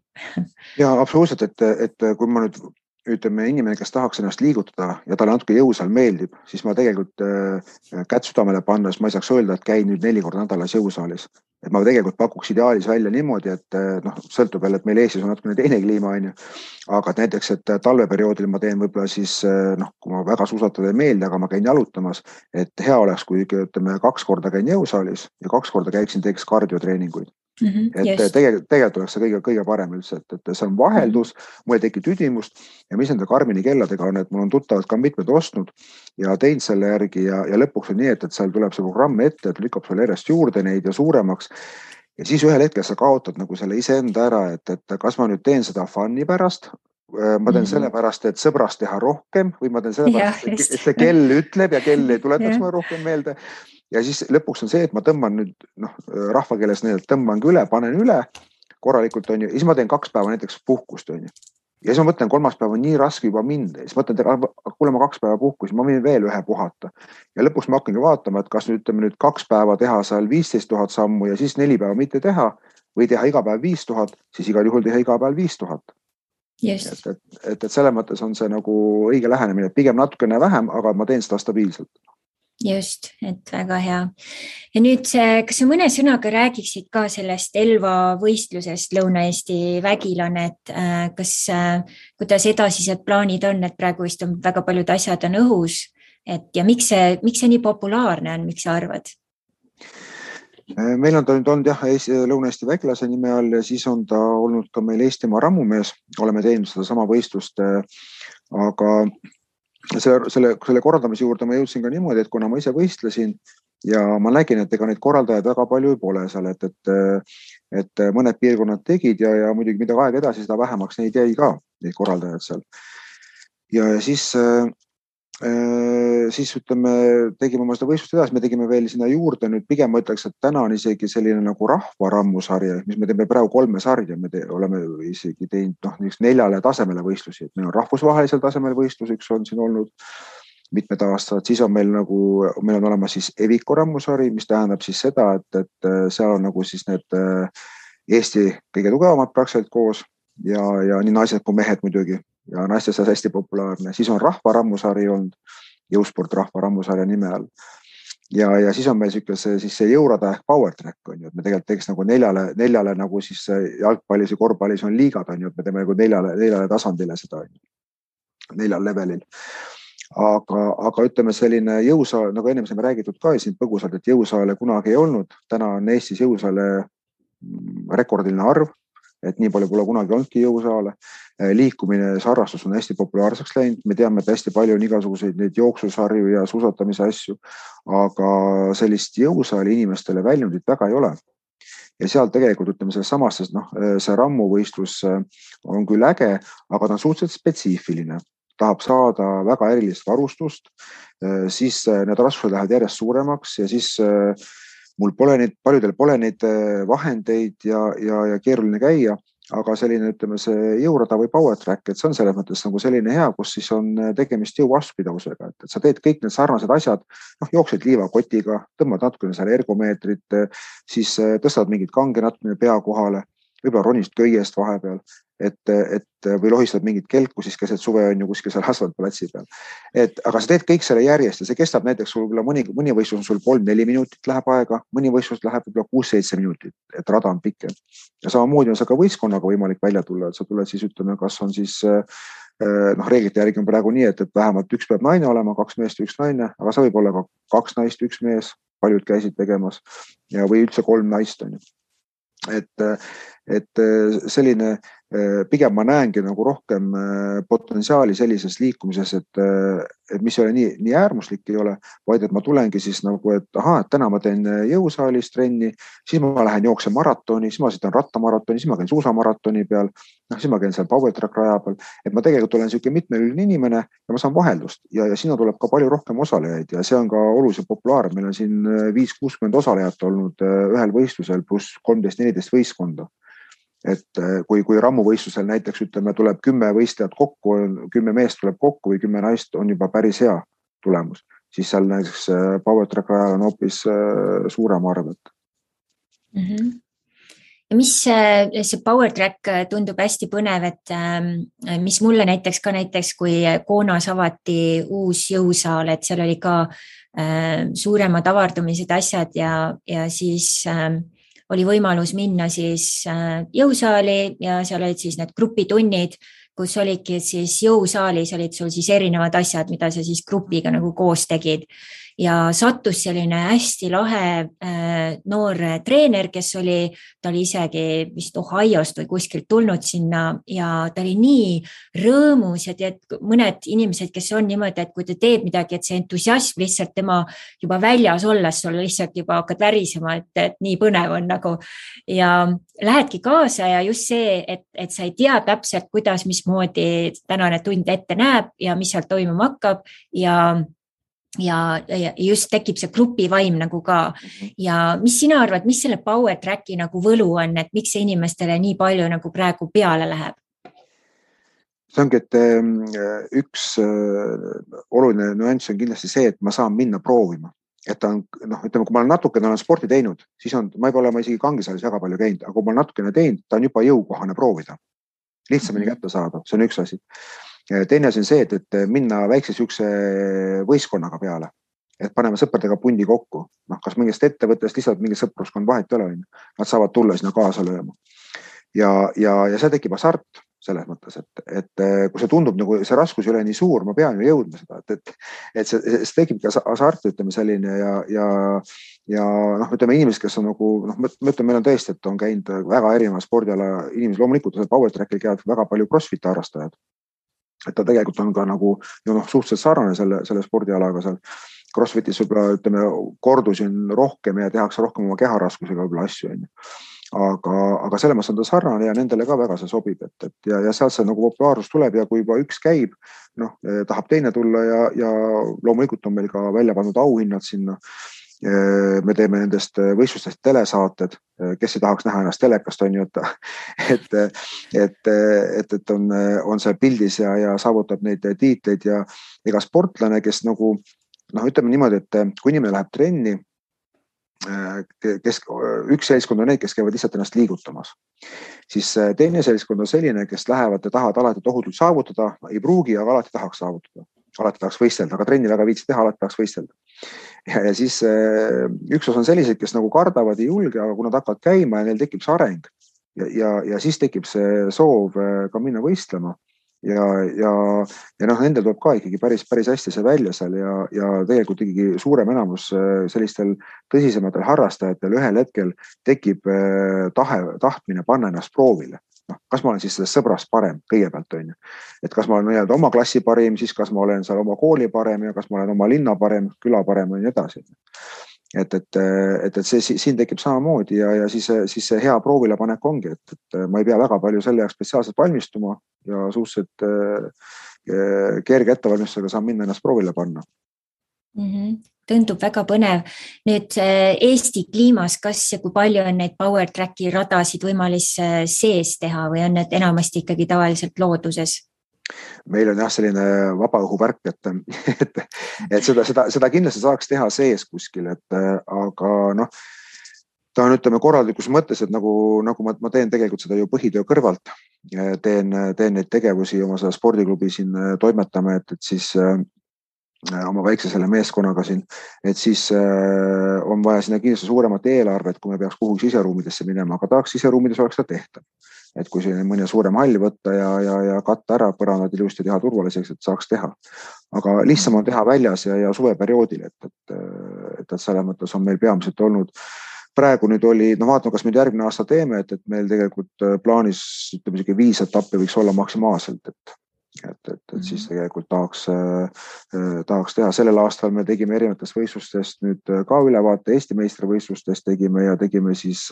Ja absoluutselt, et kui ma nüüd ütleme inimene, kes tahaks ennast liigutada ja talle natuke jõusaal meeldib, siis ma tegelikult kätt südamele pannes ma ei saaks öelda, et käin nüüd 4 korda nädalas jõusaalis. Et ma tegelikult pakuks ideaalis välja niimoodi, et sõltub veel, et meil Eestis on natuke teine kliima, aga et näiteks, et talveperioodil ma teen võib-olla siis, kui ma väga suusatada ei meeldi, aga ma käin jalutamas, et hea oleks, kui ütleme 2 korda käin jõusaalis ja 2 korda teeks kardiotreeninguid. Et tegelikult oleks see kõige parem üldse, et see on vaheldus, mul ei teki tüdimust ja mis nende Garmini kelladega on, et mul on tuttavad ka mitmed ostnud ja teinud selle järgi ja lõpuks on nii, et seal tuleb see programm ette, et lükkab sulle järjest juurde neid ja suuremaks ja siis ühel hetkel sa kaotad nagu selle iseenda ära, et kas ma nüüd teen seda fun'i pärast, ma teen selle pärast, et sõbrast teha rohkem või ma teen selle pärast, et see kell ütleb ja kell ei tuletaks mulle rohkem meelde. Ja siis lõpuks on see, et ma tõmban nüüd, rahvakeeles tõmbangi üle, panen üle korralikult on ju, ja siis ma teen 2 päeva näiteks puhkust on ju. Ja siis ma mõtlen, 3. päev on nii raske juba mind, siis mõtlen, kuule ma 2 päeva puhkus, ma võin veel 1 puhata. Ja lõpuks ma hakkangi vaatama, et kas nüüd 2 päeva teha seal 15 000 sammu ja siis 4 päeva mitte teha või teha iga päev 5000, siis igal juhul teha iga päev 5000. Just. Et selle mõttes on see nagu õige lähenemine, pigem natukene vähem, aga ma teen seda stabiilselt. Just, et väga hea. Ja nüüd, kas sa mõne sõnaga räägiksid ka sellest Elva võistlusest Lõuna-Eesti Vägilane, et kuidas edasised plaanid on, et praegu vist on väga paljud asjad on õhus, ja miks see nii populaarne on, miks sa arvad? Meil on ta nüüd olnud Lõuna-Eesti Vägilase nime all ja siis on ta olnud ka meil Eestimaa rammumees, oleme teinud seda sama võistlust, aga selle korraldamise juurde ma jõudsin ka niimoodi, et kuna ma ise võistlesin ja ma nägin, et ega neid korraldajaid väga palju ei pole seal, et mõned piirkonnad tegid ja muidugi mida aeg edasi, seda vähemaks neid jäi ka, neid korraldajad seal. Ja siis ütleme, tegime oma seda võistlust edasi, me tegime veel sinna juurde, nüüd pigem ma ütleks, et täna on isegi selline nagu rahvarammusarja, mis me teeme praegu 3 sarja, me oleme isegi teinud 4 tasemele võistlusi, et meil on rahvusvahelisel tasemel võistlus, üks on siin olnud mitmed aastad, siis on meil on olemas siis Eviko rammusari, mis tähendab siis seda, et seal on nagu siis need Eesti kõige tugevamad praktiliselt koos ja nii naised kui mehed muidugi. Ja naistes on hästi populaarne. Siis on rahvarammusari olnud, jõusport rahvarammusarja nime all. Ja siis on meil see jõurada ehk power track on ju, et me tegelikult teeks nagu 4 nagu siis jalgpallis ja korvpallis on liigad on ju, et me teeme nagu 4 tasandile seda 4 levelil. Aga ütleme selline jõusaal, nagu enne me räägitud ka siin põgusalt, et jõusaale kunagi ei olnud. Täna on Eestis jõusaale rekordiline arv. et nii palju pole kunagi olnudki jõusaale. Liikumine, see harrastus on hästi populaarseks läinud. Me teame, et hästi palju on igasuguseid neid jooksusarju ja suusatamise asju, aga sellist jõusaali inimestele väljundit väga ei ole. Ja seal tegelikult ütleme selles samas, see rammuvõistlus on küll äge, aga ta on suhteliselt spetsiifiline. Tahab saada väga erilist varustust, siis need raskused lähevad järjest suuremaks ja siis mul paljudel pole neid vahendeid ja keeruline käia, aga selline, ütleme, see jõurada või power track, et see on selles mõttes nagu selline hea, kus siis on tegemist jõuvastupidavusega, et sa teed kõik need sarnased asjad, jooksed liivakotiga, tõmbad natukene seal ergomeetrit, siis tõstad mingid kange natukene pea kohale, võib-olla ronist köiest vahepeal, või lohistad mingit kelku siis keset suve on ju kuskil seal asfaltplatsi peal. Aga sa teed kõik selle järjest ja see kestab näiteks sul mõni võistlus on sul 3-4 minutit läheb aega, mõni võistlus läheb võib-olla 6-7 minutit, et rada on pikem. Ja samamoodi on see ka võistkonnaga võimalik välja tulla, et sa tuled siis ütleme, kas on siis reeglite järgi on praegu nii, et vähemalt üks peab naine olema, 2 meest ja 1 naine, aga see võib olla ka 2 naist, 1 mees, paljud käisid tegemas ja või üldse 3 naist on ju. Et selline, pigem ma näengi nagu rohkem potentsiaali sellises liikumises, et mis ei ole nii äärmuslik ei ole, vaid et ma tulengi siis nagu, et täna ma teen jõusaalis trenni, siis ma lähen jooksen maratoni, siis ma sõidan rattamaratoni, siis ma käin suusamaratoni peal, siis ma käin seal power track raja peal, et ma tegelikult olen selline mitmelüline inimene ja ma saan vaheldust ja sinna tuleb ka palju rohkem osalejaid ja see on ka oluliselt populaarne. Meil on siin 5-60 osalejat olnud ühel võistlusel pluss 13-14 võistkonda. Et kui rammuvõistlusel näiteks ütleme, tuleb 10 võistlejat kokku, 10 meest tuleb kokku või 10 naist on juba päris hea tulemus, siis seal näiteks power track rajal on hoopis suurem arv. Ja mis see power track tundub hästi põnev, et mis mulle näiteks kui Koonas avati uus jõusaal, et seal oli ka suuremad avardumised asjad ja siis oli võimalus minna siis jõusaali ja seal olid siis need grupitunnid, kus olidki siis jõusaalis olid sul siis erinevad asjad, mida sa siis grupiga nagu koos tegid. Ja sattus selline hästi lahe noor treener, kes ta oli isegi vist Ohiost või kuskilt tulnud sinna ja ta oli nii rõõmus ja tead, mõned inimesed, kes on niimoodi, et kui ta teeb midagi, et see entusiasm lihtsalt tema juba väljas olles, sul lihtsalt juba hakkad värisema, et nii põnev on nagu ja lähedki kaasa ja just see, et sa ei tea täpselt, kuidas, mismoodi tänane tund ette näeb ja mis seal toimuma hakkab ja just tekib see grupivaim nagu ka. Ja mis sina arvad, mis selle power tracki nagu võlu on, et miks see inimestele nii palju nagu praegu peale läheb? See ongi, et üks oluline nüanss on kindlasti see, et ma saan minna proovima. Et ta on, ütleme, kui ma olen natukene sporti teinud, siis ma ei ole isegi kangisaalis väga palju käinud, aga kui ma olen natukene teinud, ta on juba jõukohane proovida. Lihtsamini kätte saada, see on üks asi. Teine asi on see, et minna väikse sükse võistkonnaga peale, et paneme sõpradega pundi kokku. Kas mingist ettevõttest lihtsalt mingi sõpruskond vahet ei ole, nad saavad tulla sinna kaasa lööma. Ja see tekib hasart selles mõttes, et kui see tundub, nagu see raskus ei ole nii suur, ma pean ju jõudma seda, et see tekib ka hasart, ütleme selline ja ütleme inimesed, kes on nagu, ma ütlen, meil on tõesti, et on käinud väga erineva spordiala inimesed, loomulikult power trackil käivad väga palju crossfiti harrastajad. Et ta tegelikult on ka nagu suhteliselt sarnane selle spordialaga seal. Crossfitis võib-olla, ütleme, kordusi on rohkem ja tehakse rohkem oma keharaskusega võib-olla asju. Aga selle mõttes on ta sarnane ja nendele ka väga see sobib. Ja sealt see nagu populaarsus tuleb ja kui juba üks käib, tahab teine tulla ja loomulikult on meil ka välja pandud auhinnad sinna. Me teeme nendest võistlustest telesaated, kes ei tahaks näha ennast telekast, on ju, et on see pildis ja saavutab neid tiitleid ja ega sportlane, kes nagu, ütleme niimoodi, et kui inimene läheb trenni, üks seltskond on need, kes käivad lihtsalt ennast liigutamas, siis teine seltskond on selline, kes lähevad ja tahavad alati tohutult saavutada, ei pruugi, aga alati tahaks saavutada. Alati tahaks võistelda, aga trenni väga viitsi teha, alati tahaks võistelda. Ja siis üks osa on sellised, kes nagu kardavad ei julge, aga kui nad hakkavad käima ja neil tekib see areng ja siis tekib see soov ka minna võistlema ja nendel tuleb ka ikkagi päris hästi see välja seal ja tegelikult ikkagi suurem enamus sellistel tõsisematel harrastajatel ühel hetkel tekib tahtmine panna ennast proovile. kas ma olen siis sellest sõbrast parem kõigepealt, on ju. Et kas ma olen oma klassi parim, siis kas ma olen seal oma kooli parem ja kas ma olen oma linna parem, küla parem ja nii edasi. Et see siin tekib samamoodi ja siis see hea proovile panek ongi, et ma ei pea väga palju selle jaoks spetsiaalselt valmistuma ja suhteliselt kerge ettevalmistusega saan minna ennast proovile panna. Tundub väga põnev. Nüüd Eesti kliimas, kas ja kui palju on neid power tracki radasid võimalis sees teha või on need enamasti ikkagi tavaliselt looduses? Meil on jah selline vabaõhuvärk, et seda kindlasti saaks teha sees kuskil, aga ta on, ütleme, korraldlikus mõttes, et nagu ma teen tegelikult seda ju põhitöö kõrvalt, teen neid tegevusi oma seda spordiklubi siin toimetame, et siis oma väikse selle meeskonnaga siin, et siis on vaja sinna kindlasti suuremat eelarvet, kui me peaks kuhugi siseruumidesse minema, aga tahaks siseruumides oleks ta tehtav. Et kui siin mõne suurem hall võtta ja katta ära põrandad ilusti teha turvaliseks, et saaks teha. Aga lihtsam on teha väljas ja suveperioodil, et selle mõttes on meil peamiselt olnud. Praegu nüüd oli, vaatame, kas nüüd järgmine aasta teeme, et meil tegelikult plaanis, ütleme, 5 etappi võiks olla maksimaalselt, et siis tegelikult tahaks teha. Sellel aastal me tegime erinevatest võistlustest nüüd ka ülevaate Eesti meistrivõistlustest tegime ja tegime siis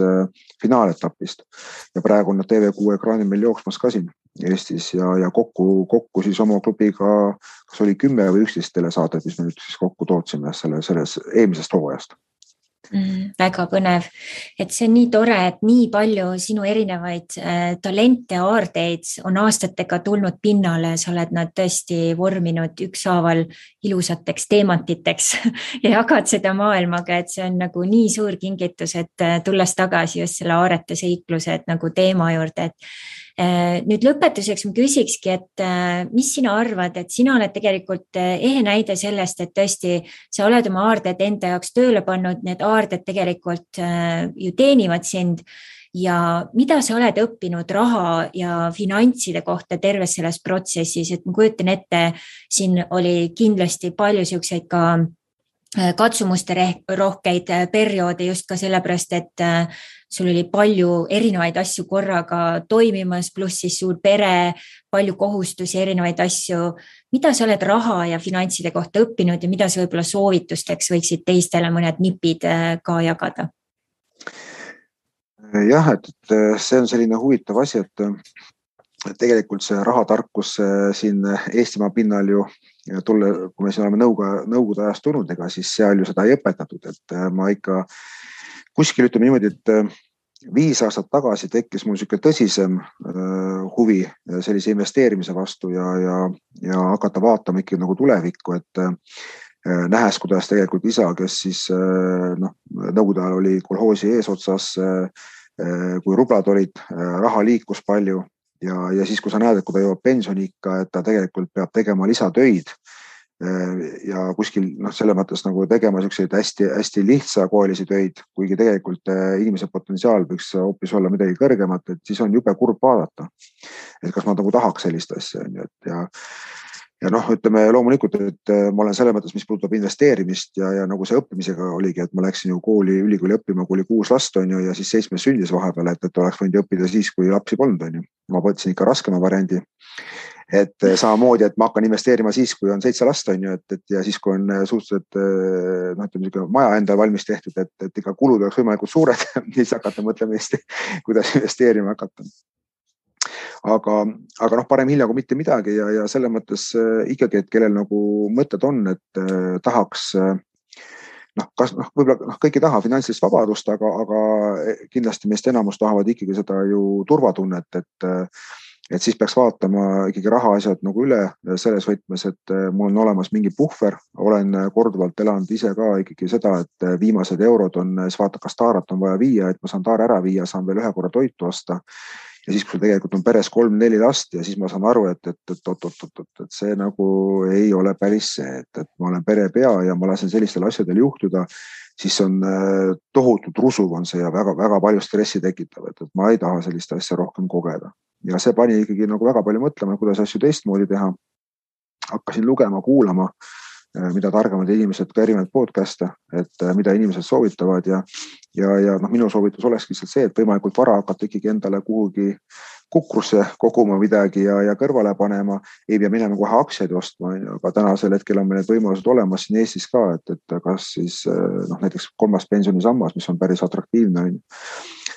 finaaletapist. Ja praegu on TV6 ekraani meil jooksmas ka siin Eestis ja kokku siis oma klubiga, kas oli 10 või 11 telesaadet, mis me nüüd siis kokku tootsime selles eelmisest hooajast. Väga põnev, et see on nii tore, et nii palju sinu erinevaid talente ja aardeid on aastatega tulnud pinnale, sa oled nad tõesti vorminud ükshaaval ilusateks teemantiteks ja jagad seda maailmaga, et see on nagu nii suur kingitus, et tulles tagasi just selle aarete seikluse nagu teema juurde, et nüüd lõpetuseks ma küsikski, et mis sina arvad, et sina oled tegelikult ehe näide sellest, et tõesti sa oled oma aarded enda jaoks tööle pannud, need aarded tegelikult ju teenivad sind ja mida sa oled õppinud raha ja finantside kohta terves selles protsessis, et ma kujutan ette, siin oli kindlasti palju siukseid ka katsumuste rohkeid perioode just ka sellepärast, et sul oli palju erinevaid asju korraga toimimas, pluss siis suur pere, palju kohustusi, erinevaid asju. Mida sa oled raha ja finantside kohta õppinud ja mida sa võib-olla soovitusteks võiksid teistele mõned nipid ka jagada? Jah, et see on selline huvitav asi, et tegelikult see rahatarkus siin Eestimaa pinnal ju kui me siin oleme nõukogude ajast tulnud, ega siis seal ju seda ei õpetatud, et ma ikka kuskil ütleme niimoodi, et 5 aastat tagasi tekkis mul selline tõsisem huvi sellise investeerimise vastu ja hakata vaatama ikkagi nagu tulevikku, et nähes, kuidas tegelikult isa, kes siis nõukogude ajal oli kolhoosi eesotsas, kui rublad olid, raha liikus palju ja siis, kui sa näed, et kui ta jõuab pensioniikka, et ta tegelikult peab tegema lisatöid ja kuskil selle mõttes nagu tegema selliseid hästi lihtsakoelisi töid, kuigi tegelikult inimese potentsiaal võiks hoopis olla midagi kõrgemat, et siis on jube kurb vaadata, et kas ma nagu tahaks sellist asja. Ja ütleme loomulikult, et ma olen selle mõttes, mis puudutab investeerimist ja nagu see õppimisega oligi, et ma läksin ju ülikooli õppima, kui oli 6 last on ju, ja siis 7 sündis vahepeal, et oleks võinud õppida siis, kui lapsi polnud on ju. Ma võtsin ikka raskema variandi, et samamoodi, et ma hakkan investeerima siis, kui on 7 last on ju, et ja siis, kui on suhteliselt maja endal valmis tehtud, et ikka kulud oleks võimalikult suured, siis hakata mõtlema Eesti, kuidas investeerima hakata. Aga parem hilja kui mitte midagi ja selle mõttes ikkagi, et kellel nagu mõtted on, et tahaks, võib-olla kõik ei taha finantsilist vabadust, aga kindlasti meist enamus tahavad ikkagi seda ju turvatunnet, et siis peaks vaatama ikkagi rahaasjad nagu üle selles võtmes, et mul on olemas mingi puhver, olen korduvalt elanud ise ka ikkagi seda, et viimased eurod on, siis vaata, kas taarat on vaja viia, et ma saan taara ära viia, saan veel 1 korra toitu osta. Ja siis, kui tegelikult on peres 3-4 last ja siis ma saan aru, et see nagu ei ole päris see, et ma olen perepea ja ma lasen sellistel asjadel juhtuda, siis on tohutult rusuv on see ja väga palju stressi tekitav, et ma ei taha sellist asja rohkem kogeda. Ja see pani ikkagi nagu väga palju mõtlema, kuidas asju teistmoodi teha. Hakkasin lugema, kuulama, mida targemad inimesed ka erinevad podcast'e, et mida inimesed soovitavad ja minu soovitus oleks lihtsalt see, et võimalikult vara hakata ikkagi endale kuhugi kukrusse koguma midagi ja kõrvale panema, ei pea minema kohe aktsiaid ostma, aga tänasel hetkel on meil need võimalused olemas siin Eestis ka, et kas siis näiteks 3. pensionisammas, mis on päris atraktiivne,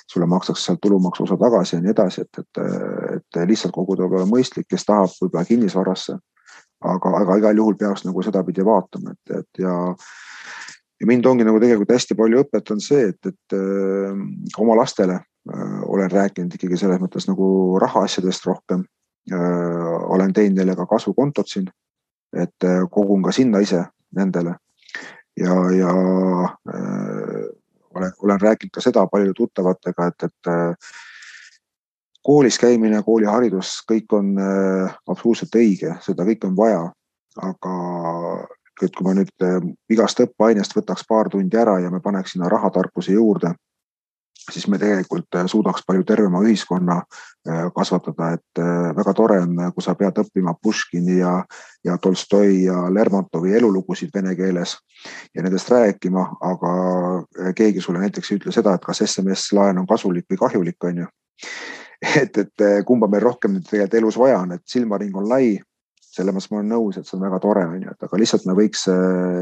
sulle makstakse sealt tulumaksu osa tagasi ja nii edasi, et lihtsalt koguda võib-olla mõistlik, kes tahab võib-olla kinnisvarasse, aga igal juhul peaks nagu seda pidi vaatama, ja mind ongi nagu tegelikult hästi palju õpetanud see, et oma lastele olen rääkinud ikkagi selles mõttes nagu rahaasjadest rohkem. Olen teinud neile ka kasvukontot siin, et kogun ka sinna ise nendele ja olen rääkinud ka seda paljude tuttavatega, et koolis käimine, kooliharidus, kõik on absoluutselt õige, seda kõik on vaja, aga kui ma nüüd igast õppeainest võtaks paar tundi ära ja me paneks sinna rahatarkuse juurde, siis me tegelikult suudaks palju tervema ühiskonna kasvatada, et väga tore on, kui sa pead õppima Puškini ja Tolstoi ja Lermontovi elulugusid vene keeles ja nendest rääkima, aga keegi sulle näiteks ei ütle seda, et kas SMS-laen on kasulik või kahjulik, on ju. Et kumba meil rohkem tegelikult elus vaja on, et silmaring on lai, selle mõttes ma olen nõus, et see on väga tore, on ju, et aga lihtsalt me võiks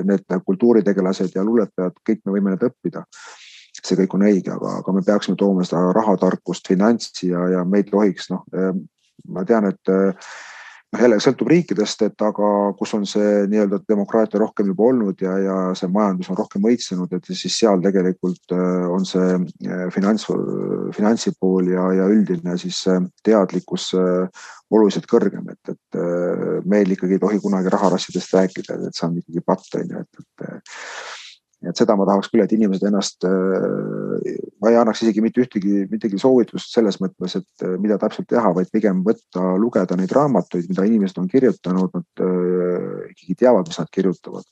need kultuuritegelased ja luuletajad, kõik me võime need õppida. See kõik on õige, aga me peaksime tooma seda rahatarkust, finantsi ja me ei tohiks, ma tean, et jälle sõltub riikidest, et aga kus on see nii-öelda demokraatia rohkem juba olnud ja see majandus on rohkem õitsenud, et siis seal tegelikult on see finantsipool ja üldine siis teadlikkus oluliselt kõrgem, et meil ikkagi ei tohi kunagi raharassidest rääkida, et see on ikkagi patt, et seda ma tahaks küll, et inimesed ennast, ma ei annaks isegi mitte ühtegi soovitust selles mõttes, et mida täpselt teha, vaid pigem lugeda neid raamatuid, mida inimesed on kirjutanud, nad ikkagi teavad, mis nad kirjutavad.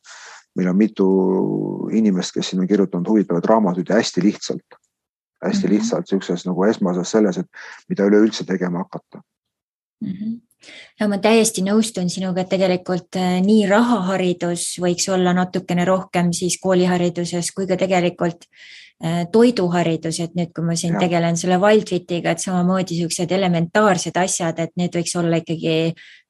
Meil on mitu inimest, kes siin on kirjutanud huvitavad raamatuid ja hästi lihtsalt sellises nagu esmases selles, et mida üleüldse tegema hakata. Ja ma täiesti nõustun sinuga, et tegelikult nii rahaharidus võiks olla natukene rohkem siis koolihariduses kui ka tegelikult toiduharidus, et nüüd, kui ma siin tegelen selle Waldwitiga, et samamoodi sellised elementaarsed asjad, et need võiks olla ikkagi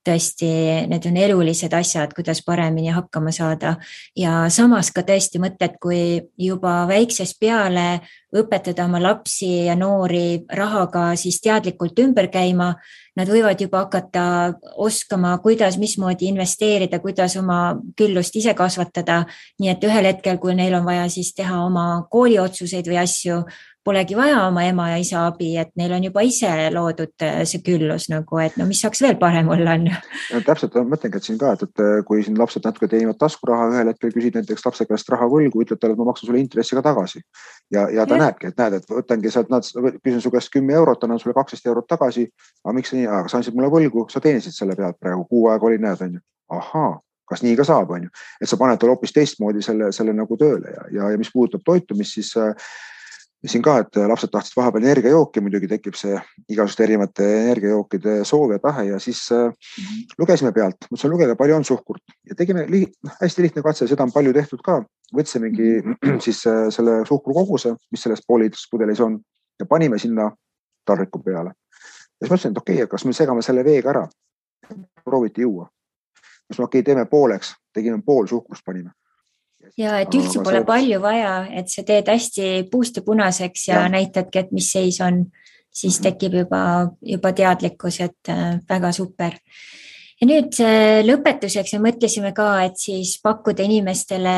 tõesti, need on elulised asjad, kuidas paremini hakkama saada ja samas ka tõesti mõtted, kui juba väiksest peale õpetada oma lapsi ja noori rahaga siis teadlikult ümber käima, nad võivad juba hakata oskama, kuidas, mismoodi investeerida, kuidas oma küllust ise kasvatada, nii et ühel hetkel, kui neil on vaja siis teha oma kooliotsuseid või asju, polegi vaja oma ema ja isa abi, et neil on juba ise loodud see küllus nagu, et no mis saaks veel parem olla on. Ja, täpselt, ma mõtlengi, et siin ka, et kui siin lapsed natuke teenivad taskuraha, ühel hetkel küsid näiteks lapse käest raha võlgu, ütled talle, et ma maksan sulle intressiga tagasi. Ja ta näebki, et võtangi sealt, küsin su käest 10 eurot, annan sulle 12 eurot tagasi, aga miks nii, aga sa andsid mulle võlgu, sa teenisid selle pealt praegu, kuu aega oli, näed, on ju. Ahaa, kas nii ka saab, on ju. Et sa paned talle hoopis teistmoodi selle nagu tööle ja mis puudutab toitumist, siis siin ka, et lapsed tahtsid vahepeal energiajooki, muidugi tekib see igasugust erinevate energiajookide soov ja tahe ja siis lugesime pealt, mõtlesin lugeda, palju on suhkurt ja tegime hästi lihtne katse, seda on palju tehtud ka, võtsimegi siis selle suhkrukoguse, mis selles pooliliitris pudelis on ja panime sinna tarriku peale. Ja siis mõtlesin, et okei, kas me segame selle veega ära, prooviti juua. Siis teeme pooleks, tegime pool suhkrust panime. Ja et üldse pole palju vaja, et sa teed hästi puust ja punaseks ja näitadki, et mis seis on, siis tekib juba teadlikkus, et väga super. Ja nüüd lõpetuseks me mõtlesime ka, et siis pakkuda inimestele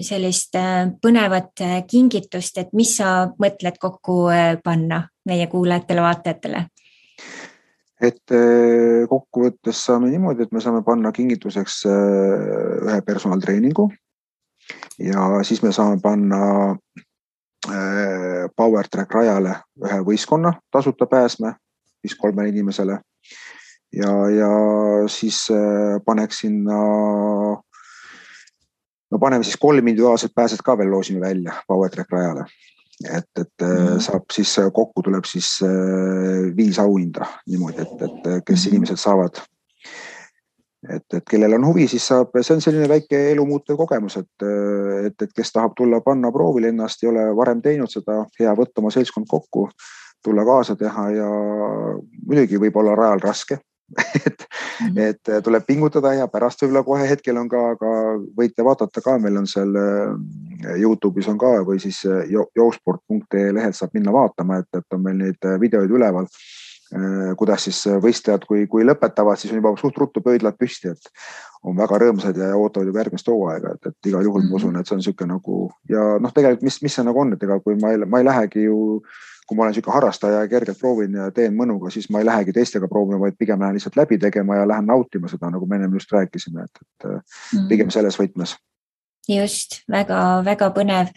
sellist põnevat kingitust, et mis sa mõtled kokku panna meie kuulajatele, vaatajatele? Et kokkuvõttes saame niimoodi, et me saame panna kingituseks ühe personaaltreeningu, ja siis me saame panna Power Track rajale ühe võistkonna tasuta pääsme, siis 3 inimesele ja siis paneks sinna, paneme siis 3 individuaalset pääset ka veel loosime välja Power Track rajale. Et saab siis kokku tuleb siis 5 auhinda niimoodi, et kes inimesed saavad. Et kellel on huvi, siis saab, see on selline väike elumuutev kogemus, et kes tahab tulla panna proovile ennast, ei ole varem teinud seda, hea võtta oma seltskond kokku, tulla kaasa teha ja muidugi võib olla rajal raske. et tuleb pingutada ja pärast võib-olla kohe hetkel on ka võite vaadata ka, meil on seal YouTube'is on ka või siis joosport.ee lehelt saab minna vaatama, et on meil neid videoid üleval, kuidas siis võistlejad, kui lõpetavad, siis on juba suht ruttu pöidlad püsti, et on väga rõõmsad ja ootavad juba järgmist hooaega, et igal juhul ma usun, et see on niisugune nagu ja tegelikult mis see nagu on, et ega kui ma ei lähegi ju, kui ma olen niisugune harrastaja ja kergelt proovin ja teen mõnuga, siis ma ei lähegi teistega proovima, vaid pigem lähen lihtsalt läbi tegema ja lähen nautima seda, nagu me enne just rääkisime, et pigem selles võtmes. Just, väga põnev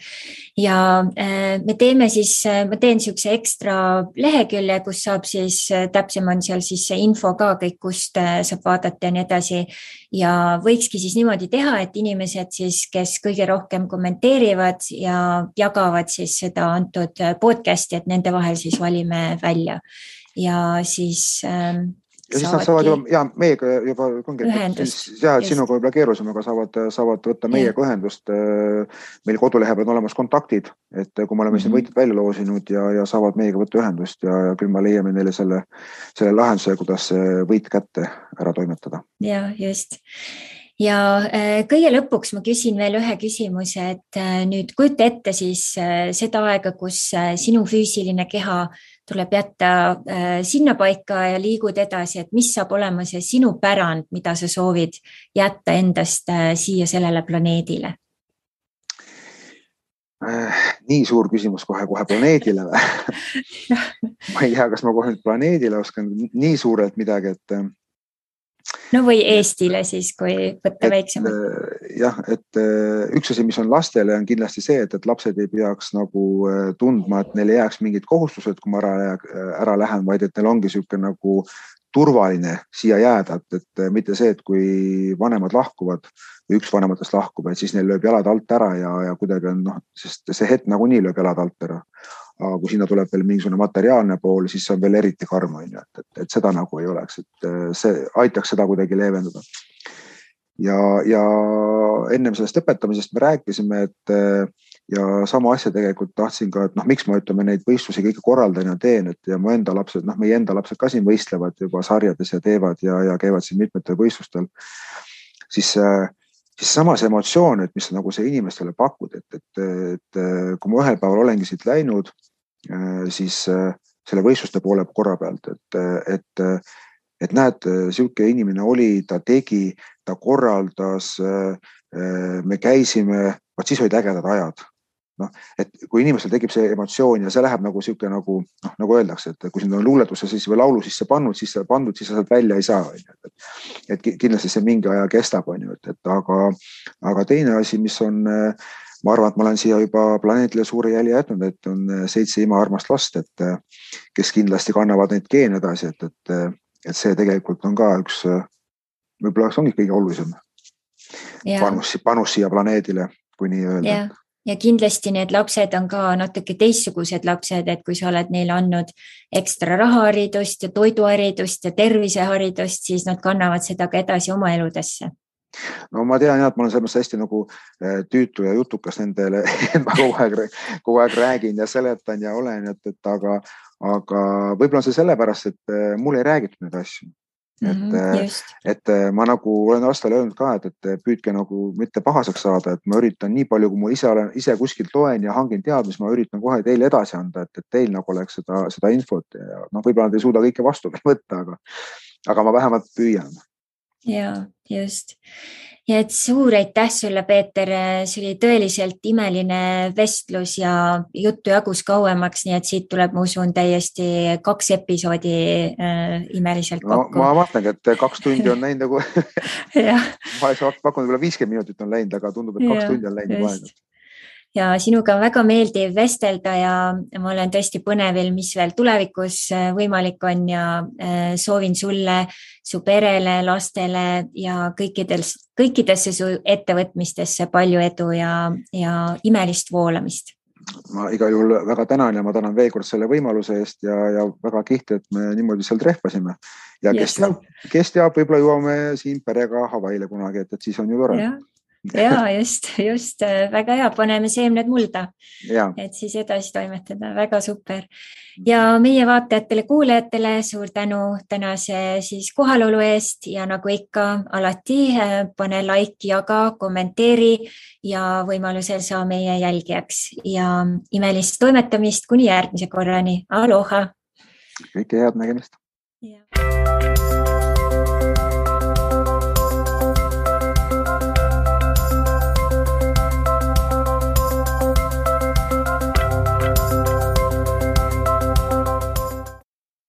ja me teeme siis, ma teen niisuguse ekstra lehekülje, kus saab siis, täpsem on seal siis see info ka kõik, kust saab vaadata ja nii edasi ja võikski siis niimoodi teha, et inimesed siis, kes kõige rohkem kommenteerivad ja jagavad siis seda antud podcasti, et nende vahel siis valime välja ja siis ja siis nad saavad juba, meiega juba sinuga võib-olla keerusem, aga saavad võtta meiega ühendust. Meil kodulehe peal on olemas kontaktid, et kui me oleme siin võitjad välja loosinud ja saavad meiega võtta ühendust ja küll me leiame neile selle lahenduse, kuidas võit kätte ära toimetada. Ja, just. Ja kõige lõpuks ma küsin veel ühe küsimuse, et nüüd kujuta ette siis seda aega, kus sinu füüsiline keha tuleb jätta sinna paika ja liigud edasi, et mis saab olema see sinu pärand, mida sa soovid jätta endast siia sellele planeedile? Nii suur küsimus kohe planeedile või? Ma ei tea, kas ma kohe planeedile oskan nii suurelt midagi, et no või Eestile siis, kui võtta väiksemalt. Jah, et üks asi, mis on lastele, on kindlasti see, et lapsed ei peaks nagu tundma, et neil ei jääks mingid kohustused, kui ma ära lähen, vaid et neil ongi niisugune nagu turvaline siia jääda, et mitte see, et kui vanemad lahkuvad või üks vanematest lahkub, et siis neil lööb jalad alt ära ja kuidagi on, sest see hetk nagunii lööb jalad alt ära. Aga kui sinna tuleb veel mingisugune materiaalne pool, siis see on veel eriti karm, et seda nagu ei oleks, et see aitaks seda kuidagi leevendada. Ja ennem sellest õpetamisest me rääkisime, et ja sama asja tegelikult tahtsin ka, et miks ma ütleme neid võistlusi kõige korraldan ja teen, et ja meie enda lapsed ka siin võistlevad juba sarjades ja teevad ja käivad siin mitmetel võistlustel, siis samas emotsioon, et mis nagu see inimestele pakud, et kui ma ühel päeval olengi siit läinud, siis selle võistluste poole korra pealt, et näed, siuke inimene oli, ta tegi, ta korraldas, me käisime, siis olid ägedad ajad. Et kui inimestel tekib see emotsioon ja see läheb nagu siuke nagu öeldakse, et kui sind on luuletusse siis või laulu sisse pandud, siis sa sealt välja ei saa. Et kindlasti see mingi aja kestab, aga teine asi, mis on, ma arvan, et ma olen siia juba planeedile suure jälje jätnud, et on 7 imaarmast last, et kes kindlasti kannavad neid geene edasi, et see tegelikult on ka üks, võib-olla ongi kõige olulisem panus siia planeedile, kui nii öelda. Ja kindlasti need lapsed on ka natuke teistsugused lapsed, et kui sa oled neile andnud ekstra rahaharidust ja toiduharidust ja terviseharidust, siis nad kannavad seda ka edasi oma eludesse. No ma tean, et ma olen selles hästi nagu tüütu ja jutukas nendele, ma kogu aeg räägin ja seletan ja olen, aga võib-olla on see sellepärast, et mul ei räägitud neid asju. Et ma nagu olen aastal öelnud ka, et püüdke nagu mitte pahaseks saada, et ma üritan nii palju, kui ma ise kuskilt loen ja hangin teadmist, ma üritan kohe teile edasi anda, et teil nagu oleks seda infot ja võib-olla nad ei suuda kõike vastu võtta, aga ma vähemalt püüan. Ja, just. Ja et suur aitäh sulle, Peeter, see oli tõeliselt imeline vestlus ja juttu jagus kauemaks, nii et siit tuleb, ma usun, täiesti 2 episoodi imeliselt kokku. Ma vastangi, et 2 tundi on läinud nagu, ma oleks pakkunud võib-olla 50 minutit on läinud, aga tundub, et 2 tundi on läinud vahenud. Ja sinuga on väga meeldiv vestelda ja ma olen tõesti põnevil, mis veel tulevikus võimalik on ja soovin sulle, su perele, lastele ja kõikidesse su ettevõtmistesse palju edu ja imelist voolamist. Ma igal juhul väga tänan ja ma tänan veel kord selle võimaluse eest ja väga kihti, et me niimoodi seal trehvasime. Ja kes teab, võib-olla jõuame siin perega Hawaiile kunagi, et siis on ju tore. ja just väga hea, paneme seemned mulda, et siis edasi toimetada, väga super. Ja meie vaatajatele-kuulajatele suur tänu tänase siis kohalolu eest ja nagu ikka alati pane like, jaga, kommenteeri ja võimalusel saa meie jälgijaks ja imelist toimetamist kuni järgmise korrani. Aloha! Kõike head nägemist! Ja.